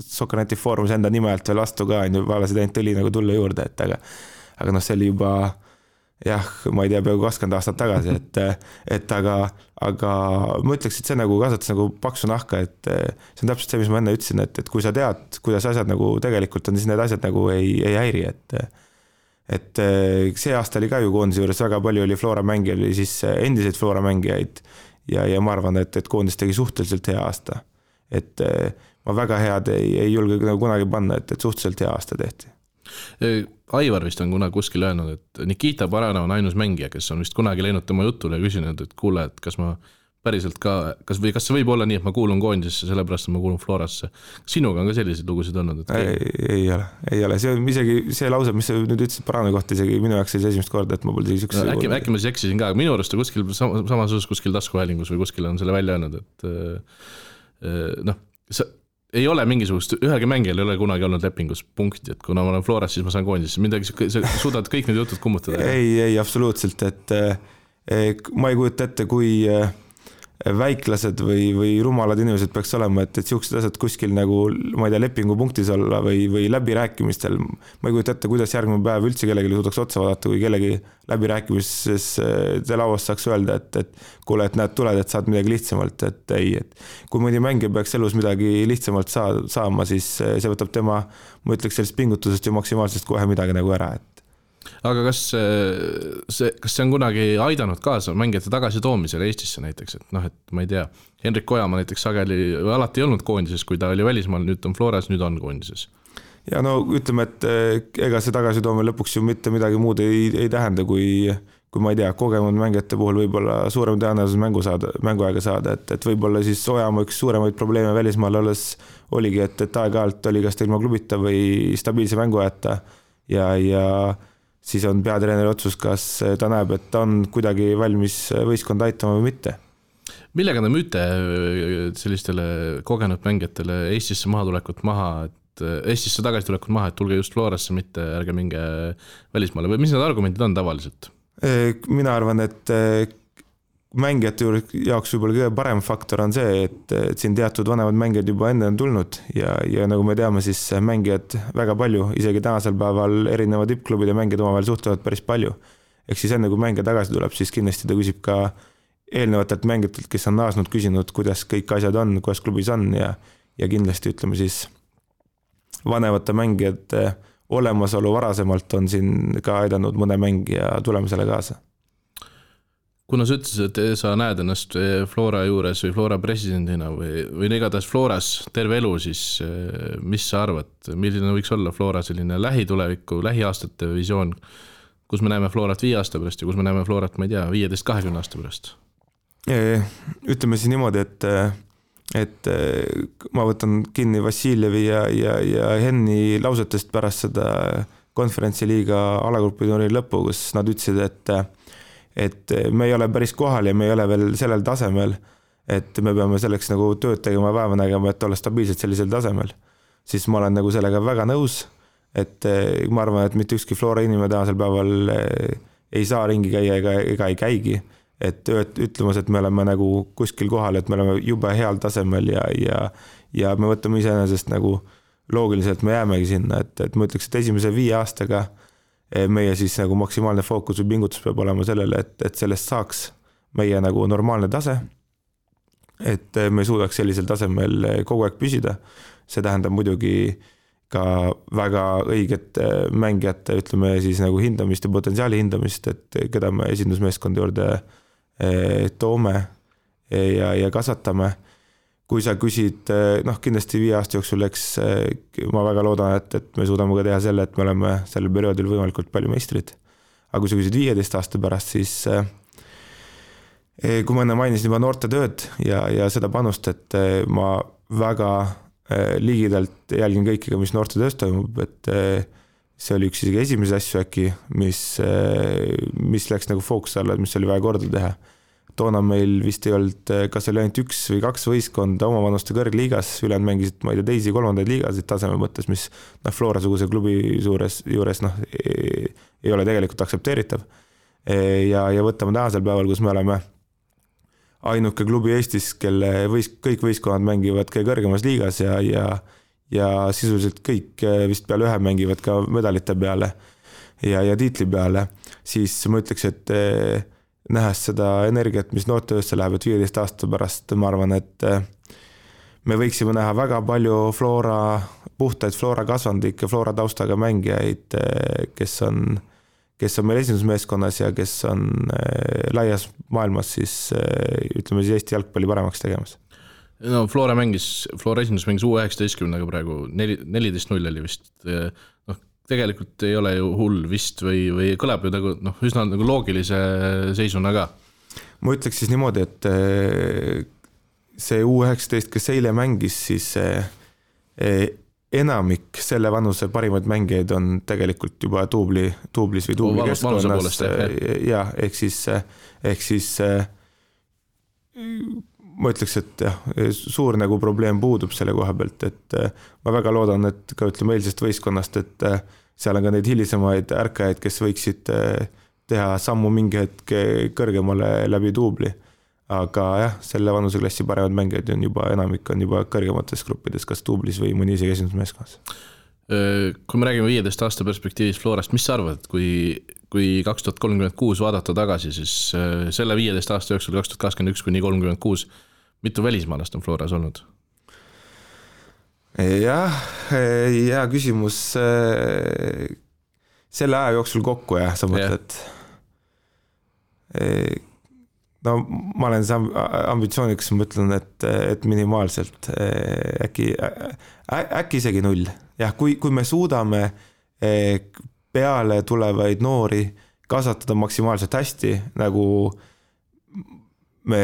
Sokkerneti foorumis enda nime alt veel vastu ka, vaalasid ainult õli nagu tulla juurde, aga see oli juba jah, ma ei tea, peaaegu 20 aastat tagasi, aga ma ütleks, et see nagu kasvatas nagu paksu nahka, et see on täpselt see, mis ma enne ütlesin, et kui sa tead, kuidas asjad nagu tegelikult on, siis need asjad nagu ei häiri, et see aasta oli ka ju koondise juures väga palju oli Flora mängijaid või siis endiseid Flora mängijaid ja ma arvan, et koondis tegi suhteliselt hea aasta. Et ma väga head ei julge nagu kunagi panna, et suhteliselt hea aasta tehti. Aivar vist on kuskil öelnud, et Nikita Barana on ainus mängija, kes on vist kunagi läinud tema jutule ja küsinud, et kuule, et kas ma päriselt ka, kas see võib olla nii, et ma kuulun koondisesse, sellepärast et ma kuulun Florasse. Sinuga on ka selliseid lugusid olnud? Ei ole. See on isegi see lause, mis sa nüüd ütlesid Barana kohta, isegi minu jaoks oli esimest korda, et ma pole sükse... Äkki ma siis eksisin ka, minu arust kuskil samas osas kuskil taskuhäälingus või kuskil on selle välja öelnud, et ei ole mingisugust, ühelgi mängijal ei ole kunagi olnud lepingus punkti, et kuna ma olen Floras, siis ma saan koondisesse. Midagi, sa suudad kõik need jutud kummutada? Ei, absoluutselt, et ma ei kujuta ette, kui väiklased või rumalad inimesed peaks olema, et siuksed asjad kuskil nagu, ma ei tea, lepingupunktis olla või läbirääkimistel. Ma ei kujuta ette, kuidas järgmine päev üldse kellegi suudaks otsa vaadata, kui kellegi läbirääkimises te lauast saaks öelda, et kuule, et näed, tuled, et saad midagi lihtsamalt, et ei, et kui mõni mängija peaks elus midagi lihtsamalt saama, siis see võtab tema, ma ütleks sellest pingutusest ja maksimaalsest kohe midagi nagu ära, et aga kas see on kunagi aidanud kaasa mängijate tagasitoomisele Eestisse näiteks, et et ma ei tea, Henrik Ojamaa näiteks sageli alati ei olnud koondises, kui ta oli välismaal, nüüd on Floras, nüüd on koondises. Ja ütleme, et ega see tagasitoomine lõpuks ju mitte midagi muud ei tähenda, kui ma ei tea, kogenud mängijate puhul võib-olla suurem tõenäosus mänguaega saada, et võib-olla siis Ojamaa üks suuremaid probleeme välismaal olles oligi, et aeg-ajalt oli kas ta ilma klubita või stabiilse mänguajata ja siis on peatreeneri otsus, kas ta näeb, et ta on kuidagi valmis võistkonda aitama või mitte. Millega te müüte sellistele kogenud mängijatele Eestisse Eestisse tagasi tulekut maha, et tulge just Florasse, mitte ärge minge välismaale või mis need argumendid on tavaliselt? Mina arvan, et mängijate jaoks võib-olla kõige parem faktor on see, et siin teatud vanemad mängijad juba enne on tulnud ja nagu me teame, siis mängijad väga palju, isegi tänasel päeval erineva tippklubide mängijad omavahel suhtlevad päris palju. ehk siis enne kui mängija tagasi tuleb, siis kindlasti ta küsib ka eelnevatelt mängijatelt, kes on naasnud, küsinud, kuidas kõik asjad on, kuidas klubis on ja kindlasti ütleme siis vanemate mängijate olemasolu varasemalt on siin ka aidanud mõne mängija tulemusele kaasa. Kuna sa ütlesid, et sa näed ennast Flora juures või Flora presidendina või igatahes Floras terve elu, siis mis sa arvad, milline võiks olla Flora selline lähituleviku, lähiaastate visioon, kus me näeme Florat 5 aasta pärast ja kus me näeme Florat, ma ei tea, 15-20 aasta pärast? Ütleme siis niimoodi, et ma võtan kinni Vassiljevi ja Henni lausetest pärast seda konverentsiliiga alagrupiturniiri lõppu, kus nad ütlesid, et me ei ole päris kohal ja me ei ole veel sellel tasemel, et me peame selleks nagu tööd tegema ja vaeva nägema, et olla stabiilselt sellisel tasemel. Siis ma olen nagu sellega väga nõus, et ma arvan, et mitte ükski Flora inimene tänasel päeval ei saa ringi käia ega ei käigi. Et ütlemas, et me oleme nagu kuskil kohal, et me oleme jube heal tasemel ja me võtame iseenesest nagu loogiliselt, me jäämegi sinna, et ma ütleks, et esimese 5 aastaga meie siis nagu maksimaalne fookus või pingutus peab olema sellele, et sellest saaks meie nagu normaalne tase, et me suudaks sellisel tasemel kogu aeg püsida. See tähendab muidugi ka väga õiget mängijate, ütleme siis nagu hindamist ja potentsiaali hindamist, et keda me esindusmeeskonda juurde toome ja kasvatame. Kui sa küsid, kindlasti 5 aasta jooksul, eks ma väga loodan, et me suudame ka teha selle, et me oleme sellel perioodil võimalikult palju meistrid. Aga kui sa küsid 15 aasta pärast, siis kui ma enne mainisin juba noorte tööd ja seda panust, et ma väga ligidalt jälgin kõikiga, mis noorte töös toimub, et see oli üks isegi esimese asju äkki, mis läks nagu fookus alla, mis oli vaja korda teha. Toona meil vist ei olnud, kas oli ainult 1 või 2 võistkonda oma vanuste kõrgliigas, ülejäänud mängisid, ma ei tea, teisi 3. liigasid taseme mõttes, mis Flora-suguse klubi juures ei ole tegelikult aktsepteeritav. Ja võtame tänasel päeval, kus me oleme ainuke klubi Eestis, kelle kõik võistkonnad mängivad kõige kõrgemas liigas ja sisuliselt kõik vist peale ühe mängivad ka medalite peale ja tiitli peale, siis ma ütleks, et nähes seda energiat, mis noortetöösse läheb, et 15 aasta pärast ma arvan, et me võiksime näha väga palju puhtaid Flora kasvandikke, Flora taustaga mängijaid, kes on meil esindusmeeskonnas ja kes on laias maailmas siis ütleme siis Eesti jalgpalli paremaks tegemas. No Flora esindus mängis U19-ga praegu 14-0 oli vist. Tegelikult ei ole ju hull vist või kõlab ju üsna nagu loogilise seisuna ka. Ma ütleks siis niimoodi, et see U19, kes eile mängis, siis enamik selle vanuse parimaid mängijaid on tegelikult juba tuublis või tuubli keskkonnas. Ja, ehk siis ma ütleks, et suur nagu probleem puudub selle koha pealt, et ma väga loodan, et ka ütleme eilsest võistkonnast, et seal on ka neid hilisemaid ärkajaid, kes võiksid teha sammu mingi hetk kõrgemale läbi tuubli. Aga jah, selle vanuseklassi paremad mängijaid on juba enamik on juba kõrgemates gruppides, kas tuublis või mõni isegi esindusmeeskonnas. Kui me räägime 15 aasta perspektiivis Florast, mis sa arvad, kui 2036 vaadata tagasi, siis selle 15 aasta jooksul 2021 kuni 36, mitu välismaalast on Floras olnud? Jah, hea küsimus selle aja jooksul kokku ja sa mõtled. No ma olen ambitsiooniks, ma ütlen, et minimaalselt äkki isegi 0. Jah, kui me suudame peale tulevaid noori kasvatada maksimaalselt hästi, nagu me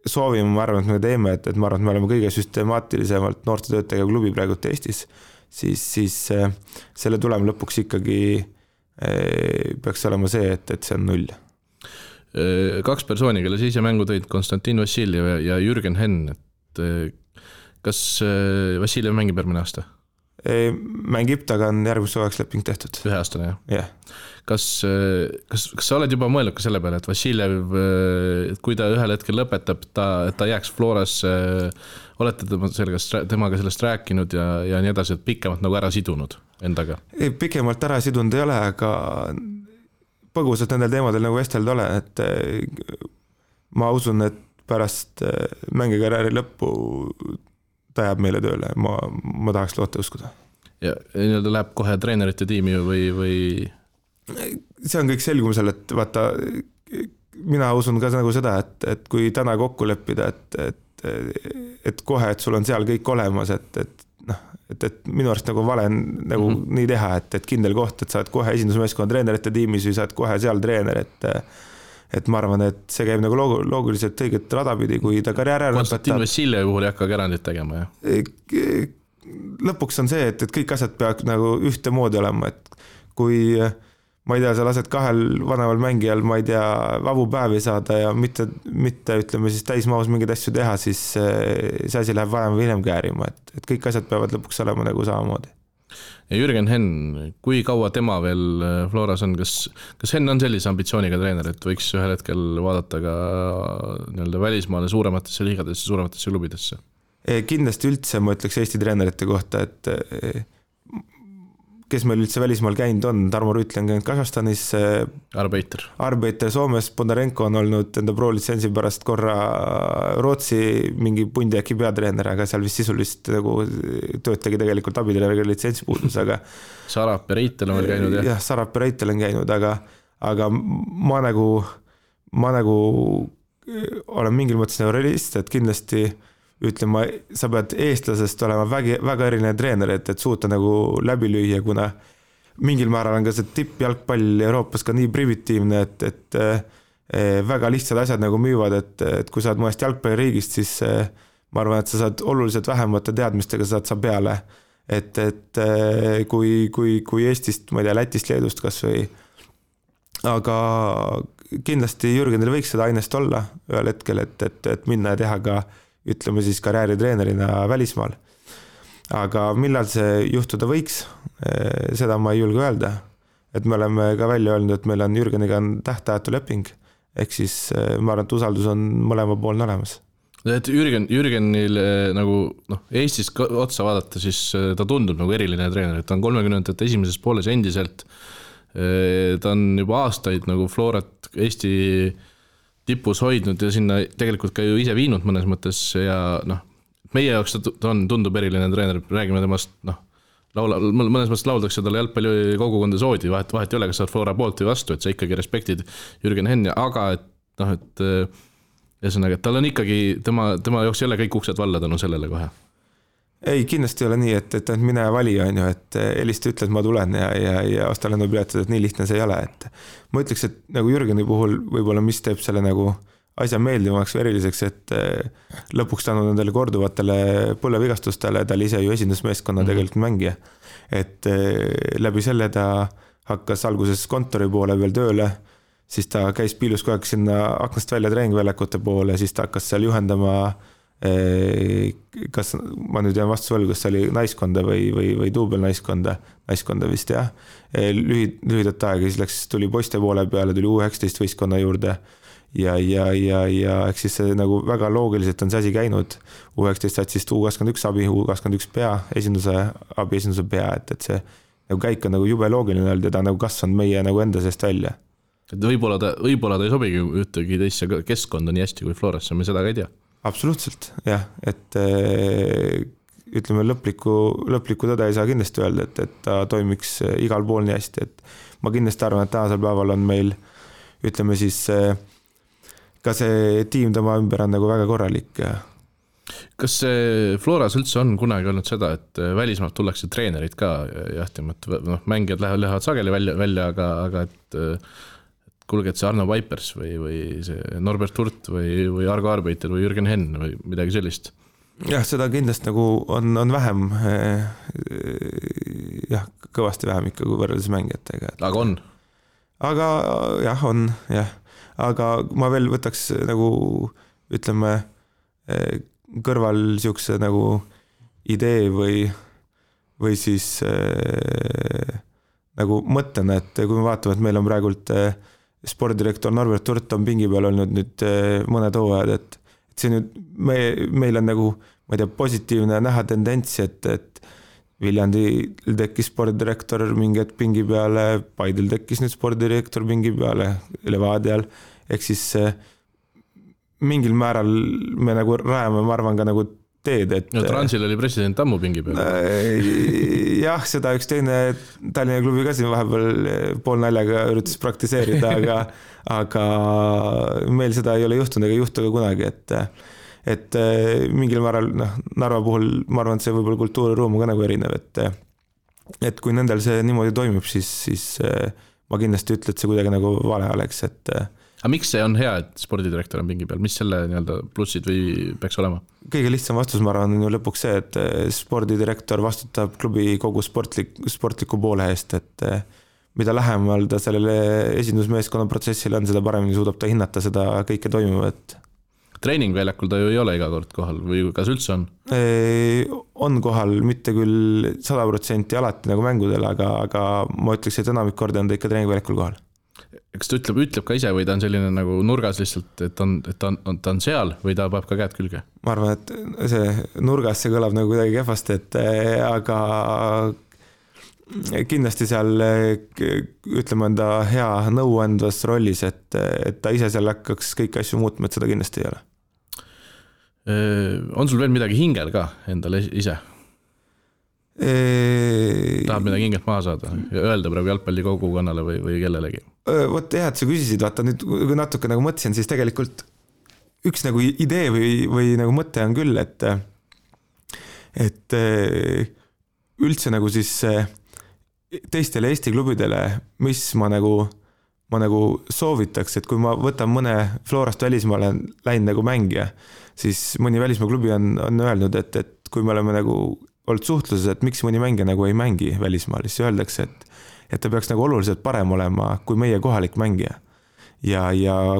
soovime, ma arvan, et me teeme, et ma arvan, et me oleme kõige süstemaatilisemalt noorte töötajega klubi praegult Eestis, siis selle tulem lõpuks ikkagi peaks olema see, et see on 0. 2 persooni, kelle ise mängu tõid, Konstantin Vassiljev ja Jürgen Henn, et kas Vassiljev mängib järgmine aasta? Mängib, taga on järgmist suveks leping tehtud. 1 aastane, jah? Jah. Kas sa oled juba mõelnud ka selle peale, et Vassiljev, kui ta ühel hetkel lõpetab, et ta jääks Floras, olete temaga sellest rääkinud ja nii edasi, et pikemalt nagu ära sidunud endaga? Pikemalt ära sidunud ei ole, aga põgusalt nendel teemadel nagu vestelda olen, et ma usun, et pärast mängikarjääri lõppu ta jääb meile tööle, ma tahaks loota uskuda. Ja nii-öelda läheb kohe treenerite tiimi või? See on kõik selgumisel, et vaata, mina usun ka nagu seda, et kui täna kokku leppida, et kohe, et sul on seal kõik olemas, et minu arust nagu vale nagu nii teha, et kindel koht, et sa oled kohe esindusmeeskonna treenerite tiimis või sa oled kohe seal treener, et ma arvan, et see käib nagu loogiliselt õiget radapidi, kui ta karjääri ära Konstantin Vassiljevi puhul ei hakka erandit tegema, jah? Lõpuks on see, et kõik asjad peaks nagu ühte moodi olema, et kui ma ei tea, sa lased kahel vanemal mängijal, ma ei tea, vabu päevi saada ja mitte ütleme siis täismahus mingeid asju teha, siis see asi läheb varem või hiljem käärima, et kõik asjad peavad lõpuks olema nagu samamoodi. Ja Jürgen Henn, kui kaua tema veel Floras on, kas Henn on sellise ambitsiooniga treener, et võiks ühel hetkel vaadata ka nii-öelda välismaale suurematesse liigadesse, suurematesse klubidesse? Kindlasti üldse ma ütleks Eesti treenerite kohta, et kes meil üldse välismaal käinud on, Tarmo Rüütli on käinud Kasahstanis, Arbeiter Soomes, Bondarenko on olnud enda pro-litsentsi pärast korra Rootsi mingi pundi äkki peatreener, aga seal vist sisulist nagu tööd tegi tegelikult abitreeneriga litsentsi puudus, aga Sarap ja Reitel on veel käinud, jah? Jah, Sarap ja Reitel on käinud, aga ma nagu olen mingil mõttes nagu realist, et kindlasti ütlema, sa pead eestlasest olema väga eriline treener, et suuta nagu läbi lüüa, kuna mingil määral on ka see tippjalgpall Euroopas ka nii primitiivne, et väga lihtsad asjad nagu müüvad, et kui sa oled mõnest jalgpalliriigist, siis ma arvan, et sa saad oluliselt vähemate teadmistega saad sa peale. Et kui Eestist, ma ei tea, Lätist, Leedust kas või, aga kindlasti Jürgenil võiks seda ainest olla ühel hetkel, et minna ja teha ka ütleme siis karjääritreenerina välismaal. Aga millal see juhtuda võiks, seda ma ei julge öelda. Et me oleme ka välja öelnud, et meil on Jürgeniga tähtajatu leping, ehk siis ma arvan, et usaldus on mõlema poolne olemas. Et Jürgenil nagu Eestis otsa vaadata, siis ta tundub nagu eriline treener, et ta on 30. esimeses pooles endiselt. Ta on juba aastaid nagu Florat Eesti tipus hoidnud ja sinna tegelikult ka ju ise viinud mõnes mõttes ja meie jaoks ta tundub eriline treener, räägime temast, mõnes mõttes lauldakse talle jalgpalli kogukonda soodi, vahet ei ole, kas sa oled Flora poolt või vastu, et sa ikkagi respektid Jürgen Henn, aga et ühesõnaga, et tal on ikkagi, tema jaoks ei ole kõik uksed valla tänu sellele kohe. Ei, kindlasti ei ole nii, et mine vali on ju, et helista ütle, et ma tulen ja osta lennupiletud, et nii lihtne see ei ole, et ma ütleks, et nagu Jürgeni puhul võib-olla mis teeb selle nagu asja meeldivamaks või eriliseks, et lõpuks tänu nendele korduvatele põlevigastustele, ta oli ise ju esindusmeeskonna tegelikult mängija, et läbi selle ta hakkas alguses kontori poole veel tööle, siis ta käis piilus kogu aeg sinna aknast välja treeningväljakute poole, siis ta hakkas seal juhendama kas ma nüüd jään vastu võlgu, kas see oli naiskonda või duubel naiskonda vist jah, lühidat aega, siis tuli poiste poole peale, tuli U19 võistkonna juurde ja eks siis see nagu väga loogiliselt on see asi käinud, U19 saad siis U21 abi, U21 pea, esinduse pea, et see nagu käik on nagu jube loogiline olnud ja ta nagu kasvanud meie nagu enda seest välja. Et võib-olla ta ei sobigi ühtegi teisse keskkonda nii hästi kui Florasse, me seda ka ei tea. Absoluutselt, jah, et ütleme lõplikku tõde ei saa kindlasti öelda, et ta toimiks igal pool nii hästi, et ma kindlasti arvan, et tänasel päeval on meil, ütleme siis, ka see tiim tema ümber on nagu väga korralik. Kas Floras üldse on kunagi olnud seda, et välismaalt tullakse treenerid ka jahtima, et mängijad lähevad sageli välja, aga et kuulge, et see Arno Vaipers või see Norbert Hurt või Argo Arbeiter või Jürgen Henn või midagi sellist? Jah, seda kindlasti nagu on vähem, jah, kõvasti vähem ikka kui võrreldes mängijatega. Aga on? Aga jah, on, jah. Aga ma veel võtaks nagu, ütleme, kõrval siukse nagu idee või siis nagu mõttena, et kui me vaatame, et meil on praegult spordidirektor Norbert Hurt on pingi peal olnud nüüd mõned hooajad, et see nüüd meil on nagu, ma ei tea, positiivne näha tendents, et Viljandil tekkis spordidirektor mingi hetk pingi peale, Paidil tekkis nüüd spordidirektor pingi peale, Levadial, ehk siis mingil määral me nagu rajame, ma arvan ka nagu teed, et no Transil oli president ammu pingi peal. Jah, seda üks teine Tallinna klubi ka siin vahepeal pool naljaga üritas praktiseerida, aga meil seda ei ole juhtunud ega juhtu ka kunagi, et mingil määral Narva puhul ma arvan, et see võib-olla kultuuriruum on ka nagu erinev, et kui nendel see niimoodi toimib, siis ma kindlasti ütle, et see kuidagi nagu vale oleks, et aga miks see on hea, et spordidirektor on pingi peal? Mis selle nii-öelda plussid või peaks olema? Kõige lihtsam vastus, ma arvan, on ju lõpuks see, et spordidirektor vastutab klubi kogu sportliku poole eest, et mida lähemal ta sellele esindusmeeskonna protsessile on, seda paremini suudab ta hinnata seda kõike toimuvat. Treeningväljakul ta ju ei ole iga kord kohal või kas üldse on? On kohal, mitte küll 100% alati nagu mängudel, aga ma ütleks, et enamik korda on ta ikka treeningväljakul kohal. Kas ta ütleb ka ise või ta on selline nagu nurgas lihtsalt, et ta on seal või ta peab ka käed külge? Ma arvan, et see nurgas see kõlab nagu kuidagi kehvasti, aga kindlasti seal ütleme enda hea nõuandvas rollis, et ta ise seal hakkaks kõiki asju muutma, et seda kindlasti ei ole. On sul veel midagi hingel ka endale ise? Tahab midagi hingelt maha saada ja öelda praegu jalgpalli kogukonnale või kellelegi? Vot jah, et sa küsisid, vaata nüüd kui natuke nagu mõtlesin, siis tegelikult üks nagu idee või nagu mõte on küll, et üldse nagu siis teistele Eesti klubidele, mis ma nagu soovitaks, et kui ma võtan mõne Florast välismaale läinud nagu mängija, siis mõni välismaa klubi on öelnud, et kui me oleme nagu olnud suhtluses, et miks mõni mängija nagu ei mängi välismaal, siis öeldakse, et ta peaks nagu oluliselt parem olema kui meie kohalik mängija. Ja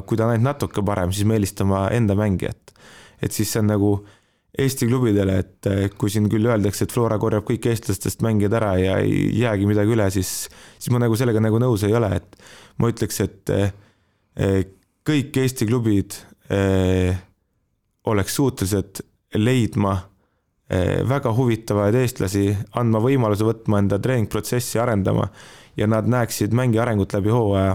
kui ta on ainult natuke parem, siis me eelistama enda mängijat. Et siis see on nagu Eesti klubidele, et kui siin küll öeldakse, et Flora korjab kõik eestlastest mängijad ära ja ei jäägi midagi üle, siis ma nagu sellega nagu nõus ei ole, et ma ütleks, et kõik Eesti klubid oleks suutelised leidma väga huvitavaid eestlasi, andma võimaluse võtma enda treeningprotsessi arendama ja nad näeksid mängi arengut läbi hooaja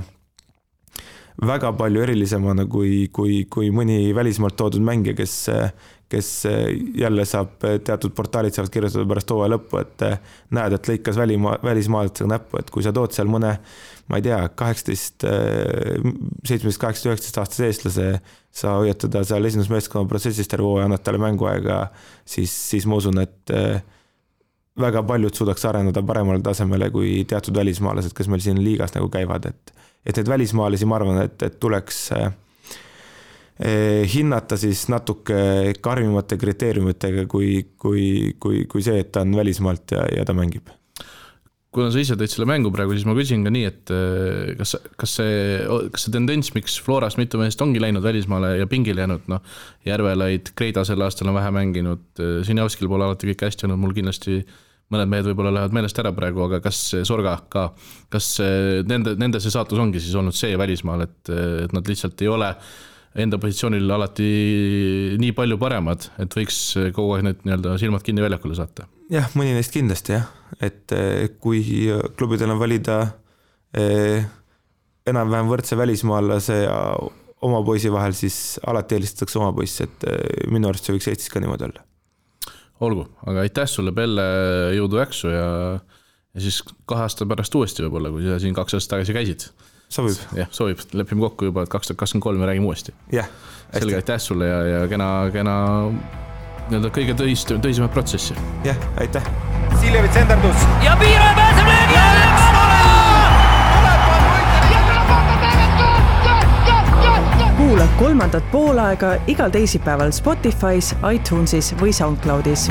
väga palju erilisemana kui mõni välismaalt toodud mängija, kes jälle saab teatud portaalid saavad kirjutada pärast hooaja lõppu, et näed, et lõikas välismaalasega näppu, et kui sa tood seal mõne, ma ei tea, 17, 19 aastase eestlase, sa hoiatada seal esindusmeeskonna protsessist terve hooaja, annad talle mänguaega, siis ma usun, et väga paljud suudaks areneda paremale tasemele kui teatud välismaalased, kes meil siin liigas nagu käivad, et need välismaalasi, ma arvan, et tuleks hinnata siis natuke karmimate kriteeriumitega kui see, et ta on välismaalt ja ta mängib. Kuna sa ise tõid selle mängu praegu, siis ma küsin ka nii, et kas see tendents, miks Florast mitu meest ongi läinud välismaale ja pingile jäänud, Järvelaid, Kreida selle aastal on vähe mänginud, Sinjavskil pole alati kõik hästi olnud, mul kindlasti mõned mehed võib-olla lähevad meelest ära praegu, aga kas Sorga ka, kas nende see saatus ongi siis olnud see välismaal, et nad lihtsalt ei ole enda positsioonil alati nii palju paremad, et võiks kogu aeg need nii-öelda silmad kinni väljakule saata? Jah, mõni neist kindlasti jah, et kui klubidel on valida enam-vähem võrdse välismaalase ja oma poisi vahel, siis alati eelistatakse oma poiss, et minu arust see võiks Eestis ka niimoodi olla. Olgu, aga aitäh sulle, Pelle, jõudu äksu ja siis 2 aasta pärast uuesti võib-olla, kui sa siin 2 aastat tagasi käisid. Sobib. Jah, sobib. Lepime kokku juba, et 2023 me räägime uuesti. Jah. Selge, aitäh sulle ja kena kõige tõisimat protsessi. Jah, aitäh. Siljevits endardus. Ja Piiro pääseb löögi! Kuula 3. poolaega igal teisipäeval Spotify's, iTunesis või SoundCloudis.